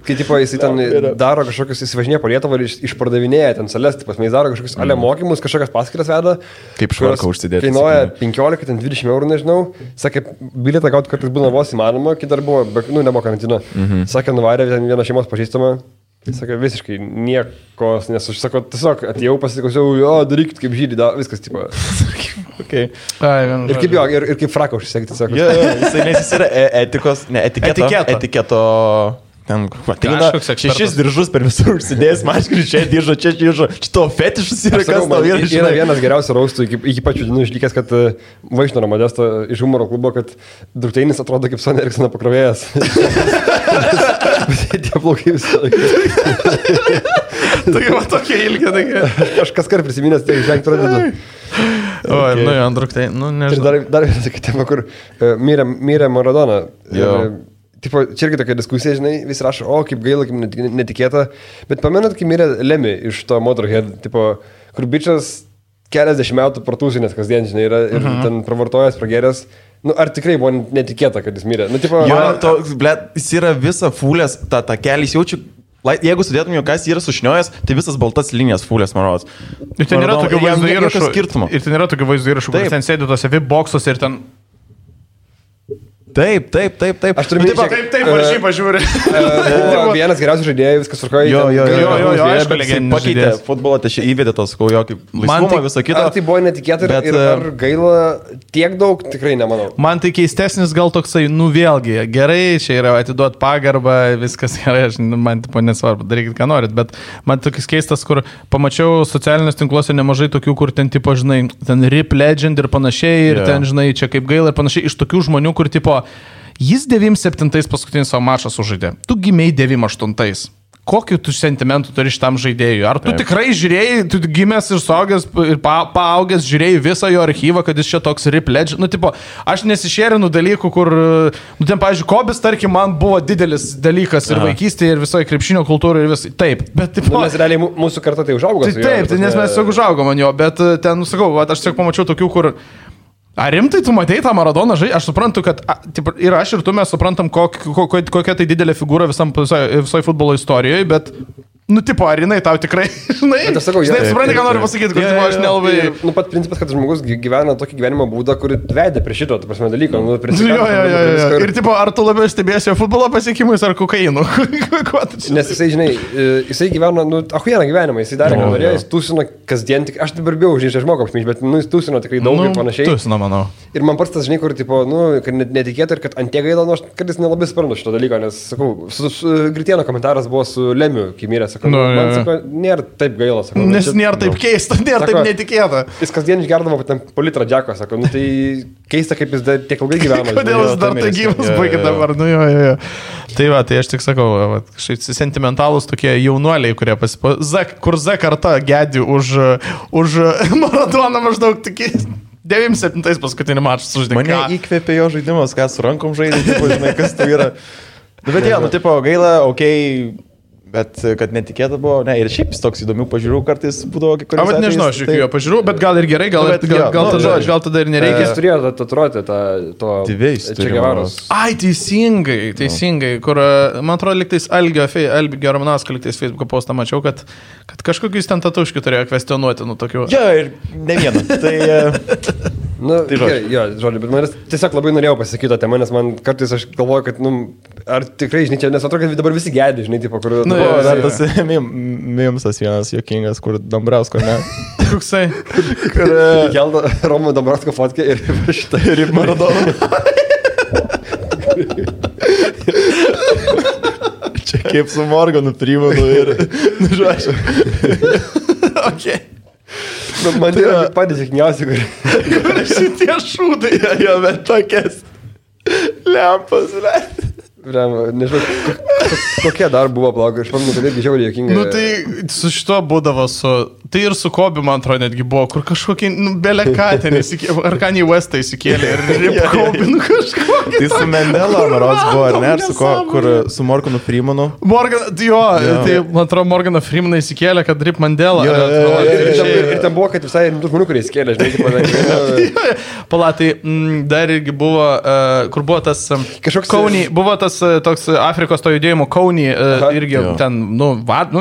Kai tipo, jis ten daro kažkokius, įsivažinėja po Lietuvą ir išpardavinėja ten sales, tipas, jis daro kažkokius ale mokymus, kažkokias paskiras veda. Kaip švarką užsidėti. Kainuoja 15-20 eurų, nežinau. Sakė, bilietą gauti kartais būna vos įmanoma, kai dar buvo, nebuvo karantino. Sakė, nuvarė vieną šeimos pažįstamą. Sakė, visiškai niekos, nes aš sakau, tiesiog atėjau, pasiklausiau, jo, darykit kaip žydį, viskas, tipo. Okay. Ir kaip jo, ir kaip fraką užsisekti, sako. Nes jis yra etikos, ne, etiketo. Ten, ateina 6 diržus per visur užsidėjęs, maškrių, čia diržo, čia to fetišus yra, kas tau yra. Yra vienas geriausių raustų, iki pačių dienų išlikęs, kad Vaišnoro Modesto iš humoro klubo, kad Drukteinis atrodo kaip Sony Ericssono pakrovėjas. Tie plaukai visą laiką. Tokie ilgi, tokie. Aš kaskart prisiminęs, tai žengti pradedu. Oi, nu jo, Drukteinis, nu nežinau. Ir dar vienas sakyti, kur mirė Maradona. Tipo, čia irgi tokia diskusija, žinai, vis rašo, o kaip gaila, kaip netikėta, bet pamenat, kai mirė Lemmy iš to Motorhead, tipo, kur bičias keliasdešimt metų partūsinės kasdien, žinai, yra ir ten pravartojęs, prageręs, nu, ar tikrai buvo netikėta, kad jis mirė? Nu, tipo, jis yra visa fulės, tą kelį, jis jaučiu, jeigu sudėtum jo, kas jis yra sušniojęs, tai visas baltas linijas fulės, marodas. Ir ten yra tokių vaizdo įrašų, kur ten sėdi tose VIP boksuose ir ten... Taip. Aš turiu minti, taip, varžybą žiūri. Vienas geriausių žaidėjų, viskas tvarkoja. Jo, aišku, legendinis pakeitė futbolą, tai čia įvedė tos, jo, kaip laisvumą, visą kitą. Ar tai buvo netikėta ir ar gaila tiek daug, tikrai nemanau. Man tai keistesnis gal toksai, nu vėlgi, gerai, čia yra atiduot pagarbą, viskas gerai, man tipo nesvarbu, darykit, ką norit, bet man tokis keistas, kur pamačiau socialiniuose tinkluose nemažai tokių, kur ten tipo, žinai, ten Rip Legend ir panašiai, ir ten, žinai, čia kaip gaila ir panašiai, iš tokių žmonių, kur tipo jis 97 paskutinį savo mačą sužaidė. Tu gimėjai 98. Kokiu tu sentimentų turi šitam žaidėjui? Ar tu tikrai žiūrėjai, tu gimęs ir suaugęs ir paaugęs žiūrėjai visą jo archyvą, kad jis čia toks Rip Legend? Nu, tipo, aš nesišėrinu dalykų, kur, nu, ten, pavyzdžiui, Kobis, tarkim, man buvo didelis dalykas ir vaikystėje, ir visoje krepšinio kultūroje, ir visai. Taip, bet, tipo... Nu, nes realiai mūsų karta tai užaugo. Taip, nes mes tiesiog užaugom ant jo, bet ten, sakau, aš tiesiog pamačiau tokių, kur... Ar rimtai tu matei tą Maradoną žaidžią? Aš suprantu, kad ir aš ir tu mes suprantam, kokia tai didelė figūra visoje futbolo istorijoje, bet, nu, tipo, ar jinai tau tikrai, žinai, aš sakau, supranti, ką noriu pasakyti, kad aš nelabai... Nu, pat principas, kad žmogus gyvena tokį gyvenimo būdą, kurį vedė prie šito, ta prasme, dalyko. Nu, ir, tipo, ar tu labiau stebėsi jo futbolo pasiekimais ar kokainu? Nes jisai, žinai, jisai gyveno, nu, ahujieną gyvenimą, jisai darė, ką norėjo, jis tūsino kasdien, tik aš dabar bijau, žinai, aš moku apsmyš, bet, nu, jis tūsino tikrai daug ir panašiai. Tūsino, manau. Ir man pats tas, žinai, kur, tipo, nu, kad netikėta ir kad ant tiek gaila, nu, aš kartais nelabai suprantu šito dalyko, nes, sakau, Gritieno komentaras buvo su Lemiu, kai mirė, sakau, man, sakau, nėra taip gaila, sakau. Nes nėra taip keista, nėra taip netikėta. Jis kasdien išgerdavo po litrą džeko, sakau, nu, tai keista, kaip jis tiek ilgai gyveno. Kodėl jis dar tai gyvas baigė dabar, nu jo. Tai va, tai aš tik sakau, kažkaip sentimentalus tokie jaunuoliai, kurie kur Z karta gedi už Maradoną maždaug tokie 97 paskutinį mačą sužaidė. Mane įkvėpė jo žaidimas, ką su rankom žaidė, tipo, žinai, kas tai yra. Bet jie, nu, tipo, gaila, okei, bet kad netikėta buvo, ne, ir šiaip toks įdomių pažiūrų kartais būdavo kai kuriuos. Bet nežinau, aš jokių pažiūrų, bet gal ir gerai, gal tada ir nereikia. Jis turėjo tatuiruotę to Che Guevaros. Ai, teisingai, kur, man atrodo, liktais Algio Ramanauskas liktais Facebook'o postą mačiau, kad kažkokius ten tatuškių turėjo kvestionuoti, nu, tokių. Jo, ir ne vieną. Tai... Nu, tai žodžiu, bet man tiesiog labai norėjau pasakyti tą temą, nes man kartais aš galvoju, kad, nu, ar tikrai, žinai, čia, nes atrodo, kad dabar visi gedi, žinai, tipo, kur... Nu, dar tas mimsas vienas juokingas, kur Dambrausko, ne? Koksai? Kur... Keldo Romo Dambrausko fotkę ir šitą ir Maradoną. Čia kaip su Morganu primenu ir... Nu, žodžiu. Okay. Man tai yra patys sėkmiausi, kur šitie šūdai. Jo, bet tokias lempas, Nežinau, kokie dar buvo plaukai, aš pamenu, kad irgi žiauriai jokinga. Nu tai su šito būdavo tai ir su Kobe, man atrodo, netgi buvo, kur kažkokį, belekatę įsikėlė, ar Kanye Westą įsikėlė ir Rip Kobe, kažkokį. Tai su Mandela, maros buvo, ar ne, ar su ko, kur su Morganu Freemanu. Tai man atrodo, Morganą Freemaną įsikėlė, kad Rip Mandela. Ir ten buvo, kad visai rimtų žmonių, kurie įsikėlė, žinai, Palatai, dar irgi buvo, kur buvo tas Kaunį, buvo tas toks Afrikos to judėjimo Kaunį, irgi ten,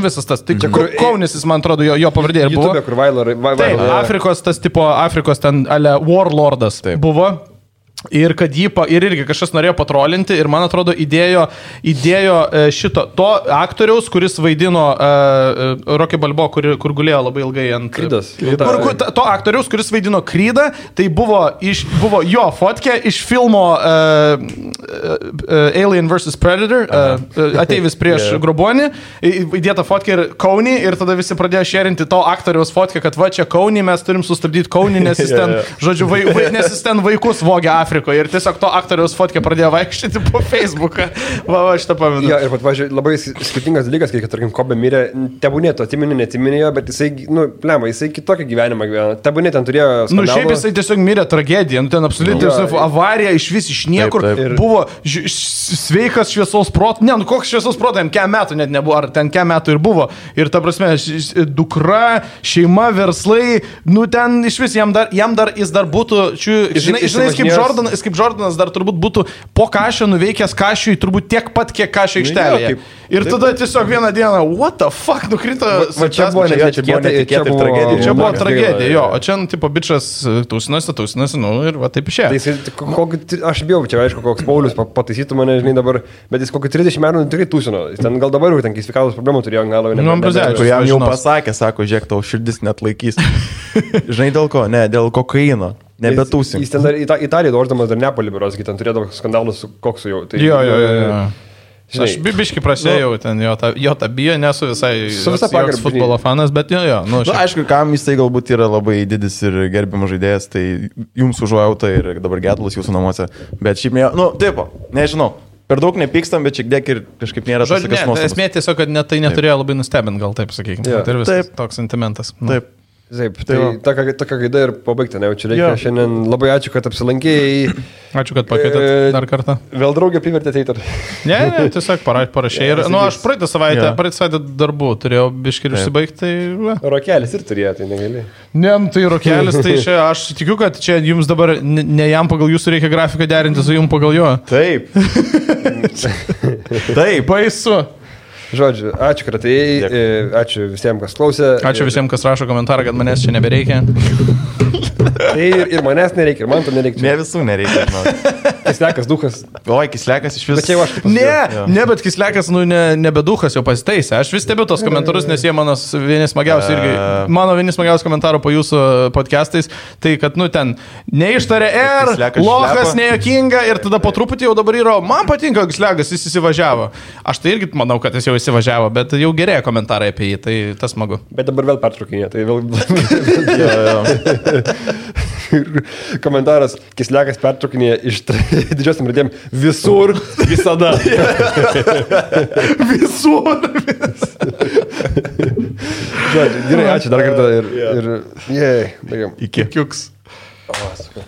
visas tas, tai Kaunis, jis man atrodo, jo pavardė ir buvo. YouTube, kur Vailar. Taip, Afrikos ten Warlordas buvo. Ir kad ir irgi kažkas norėjo patrolinti ir man atrodo įdėjo to aktoriaus, kuris vaidino Rocky Balboa, kur gulėjo labai ilgai ant Krydas. To aktoriaus, kuris vaidino Krydą, tai buvo jo fotkė iš filmo Alien vs. Predator, ateivis prieš Grobonį, įdėta fotkė ir Kaunį ir tada visi pradėjo šerinti to aktoriaus fotkę, kad va čia Kaunį, mes turim sustabdyti Kaunį, nes jis ten, žodžiu, nes jis ten vaikus vogia Afrikoje ir tiesiog to aktoriaus fotkę pradėjo vaikščioti po Facebooką. Va, šitą pamenu. Ja, ir pat, važiuoju, labai skirtingas dalykas, kai, tarkim, Kobe mirė, tebūnė to neatsiminėjo, bet jisai kitokį gyvenimą gyveno. Tebūnė ten turėjo skandalą. Šiaip jisai tiesiog mirė tragediją, ten absoliučiai avarija iš vis iš niekur. Taip. Buvo sveikas šviesos protas, koks šviesos protas, jam kiek metų net nebuvo, ar ten kiek metų ir buvo. Ir ta prasme, dukra, šeima, verslai, ten iš vis jam dar jis dar būtų, žinai, kaip Jordanas dar turbūt būtų po Kašio nuveikęs Kašiui turbūt tiek pat, kiek Kašio aikštelėje. Ir tada tiesiog vieną dieną, what the fuck, nukrito. Čia buvo netikėta tragedija. Čia buvo tragedija, jo. O čia, tipo, bičas tūsinasi, ir va taip išėjo. Aš bijau, čia aišku, koks Paulius pataisytų mane, žinai, dabar, bet jis kokį 30 metų tikrai tūsino. Ten gal dabar jau ten sveikatos problemų turėjo, gal jau jam jau pasakė, sako, žiūrėk, tau širdis net laikys. Žinai dėl ko? Ne, dėl kokaino. Nebetūsim. Jis ten dar Italiją doždamas dar Nepalį biuros, ten turėdavo skandalus su koksu jau. Tai, jo. Žinai, aš biškai prasėjau ten jo tą bijo, nesu visai futbolo fanas, bet jo. Aišku, kam jisai galbūt yra labai didis ir gerbiamas žaidėjas, tai jums užuojauta ir dabar gedulas jūsų namuose. Bet šiaip, nežinau. Per daug nepykstam, bet šiek tiek ir kažkaip nėra tas tokias nuostabas. Esmė tiesiog, kad tai neturėjo labai nustebint, gal taip sakykime. Tai ir visas toks sentimentas. Taip. Taip, tai tokia gaida ir pabaigti, ne, čia reikia šiandien. Labai ačiū, kad apsilankėjai. Ačiū, kad pakvietėt dar kartą. Vėl draugė privertėte eiti. Ne, tiesiog parašė. Ir, aš praeitą savaitę darbų turėjau biškį ir užsibaigti. Tai, Rokelis ir turėjo, tai negali. Ne, tai Rokelis, tai čia aš tikiu, kad čia jums dabar ne jam pagal jūsų reikia grafiką derinti su jums pagal jo. Taip. Taip, baisu. Žodžiu, ačiū, kad atėjai, ačiū visiems, kas klausė. Ačiū visiems, kas rašo komentarą, kad manęs čia nebereikia. Tai ir manęs nereikia, ir man to nereikia. Ne visų nereikia, žinau. Kislekas, duchas. Oi, Kislekas iš vis. Bet Kislekas, nebe duchas jau pasitaisė. Aš vis stebiu tos komentarus, nes jie mano vieni smagiausi komentarų po jūsų podcastais. Tai, kad, ten neištarė lochas, nejokinga ir tada po truputį jau dabar yra, man patinka Kislekas, jis įsivažiavo. Aš tai irgi manau, kad jis jau įsivažiavo, bet jau gerėja komentarai apie jį, tai tas smagu. Bet dabar vėl pertraukinė, tai vėl... Komentaras, Kislekas pertraukinėje iš didžiosiam radėm visur, visada. Visur. Žodžiu, gerai, ačiū dar kartą ir baigiam. Iki.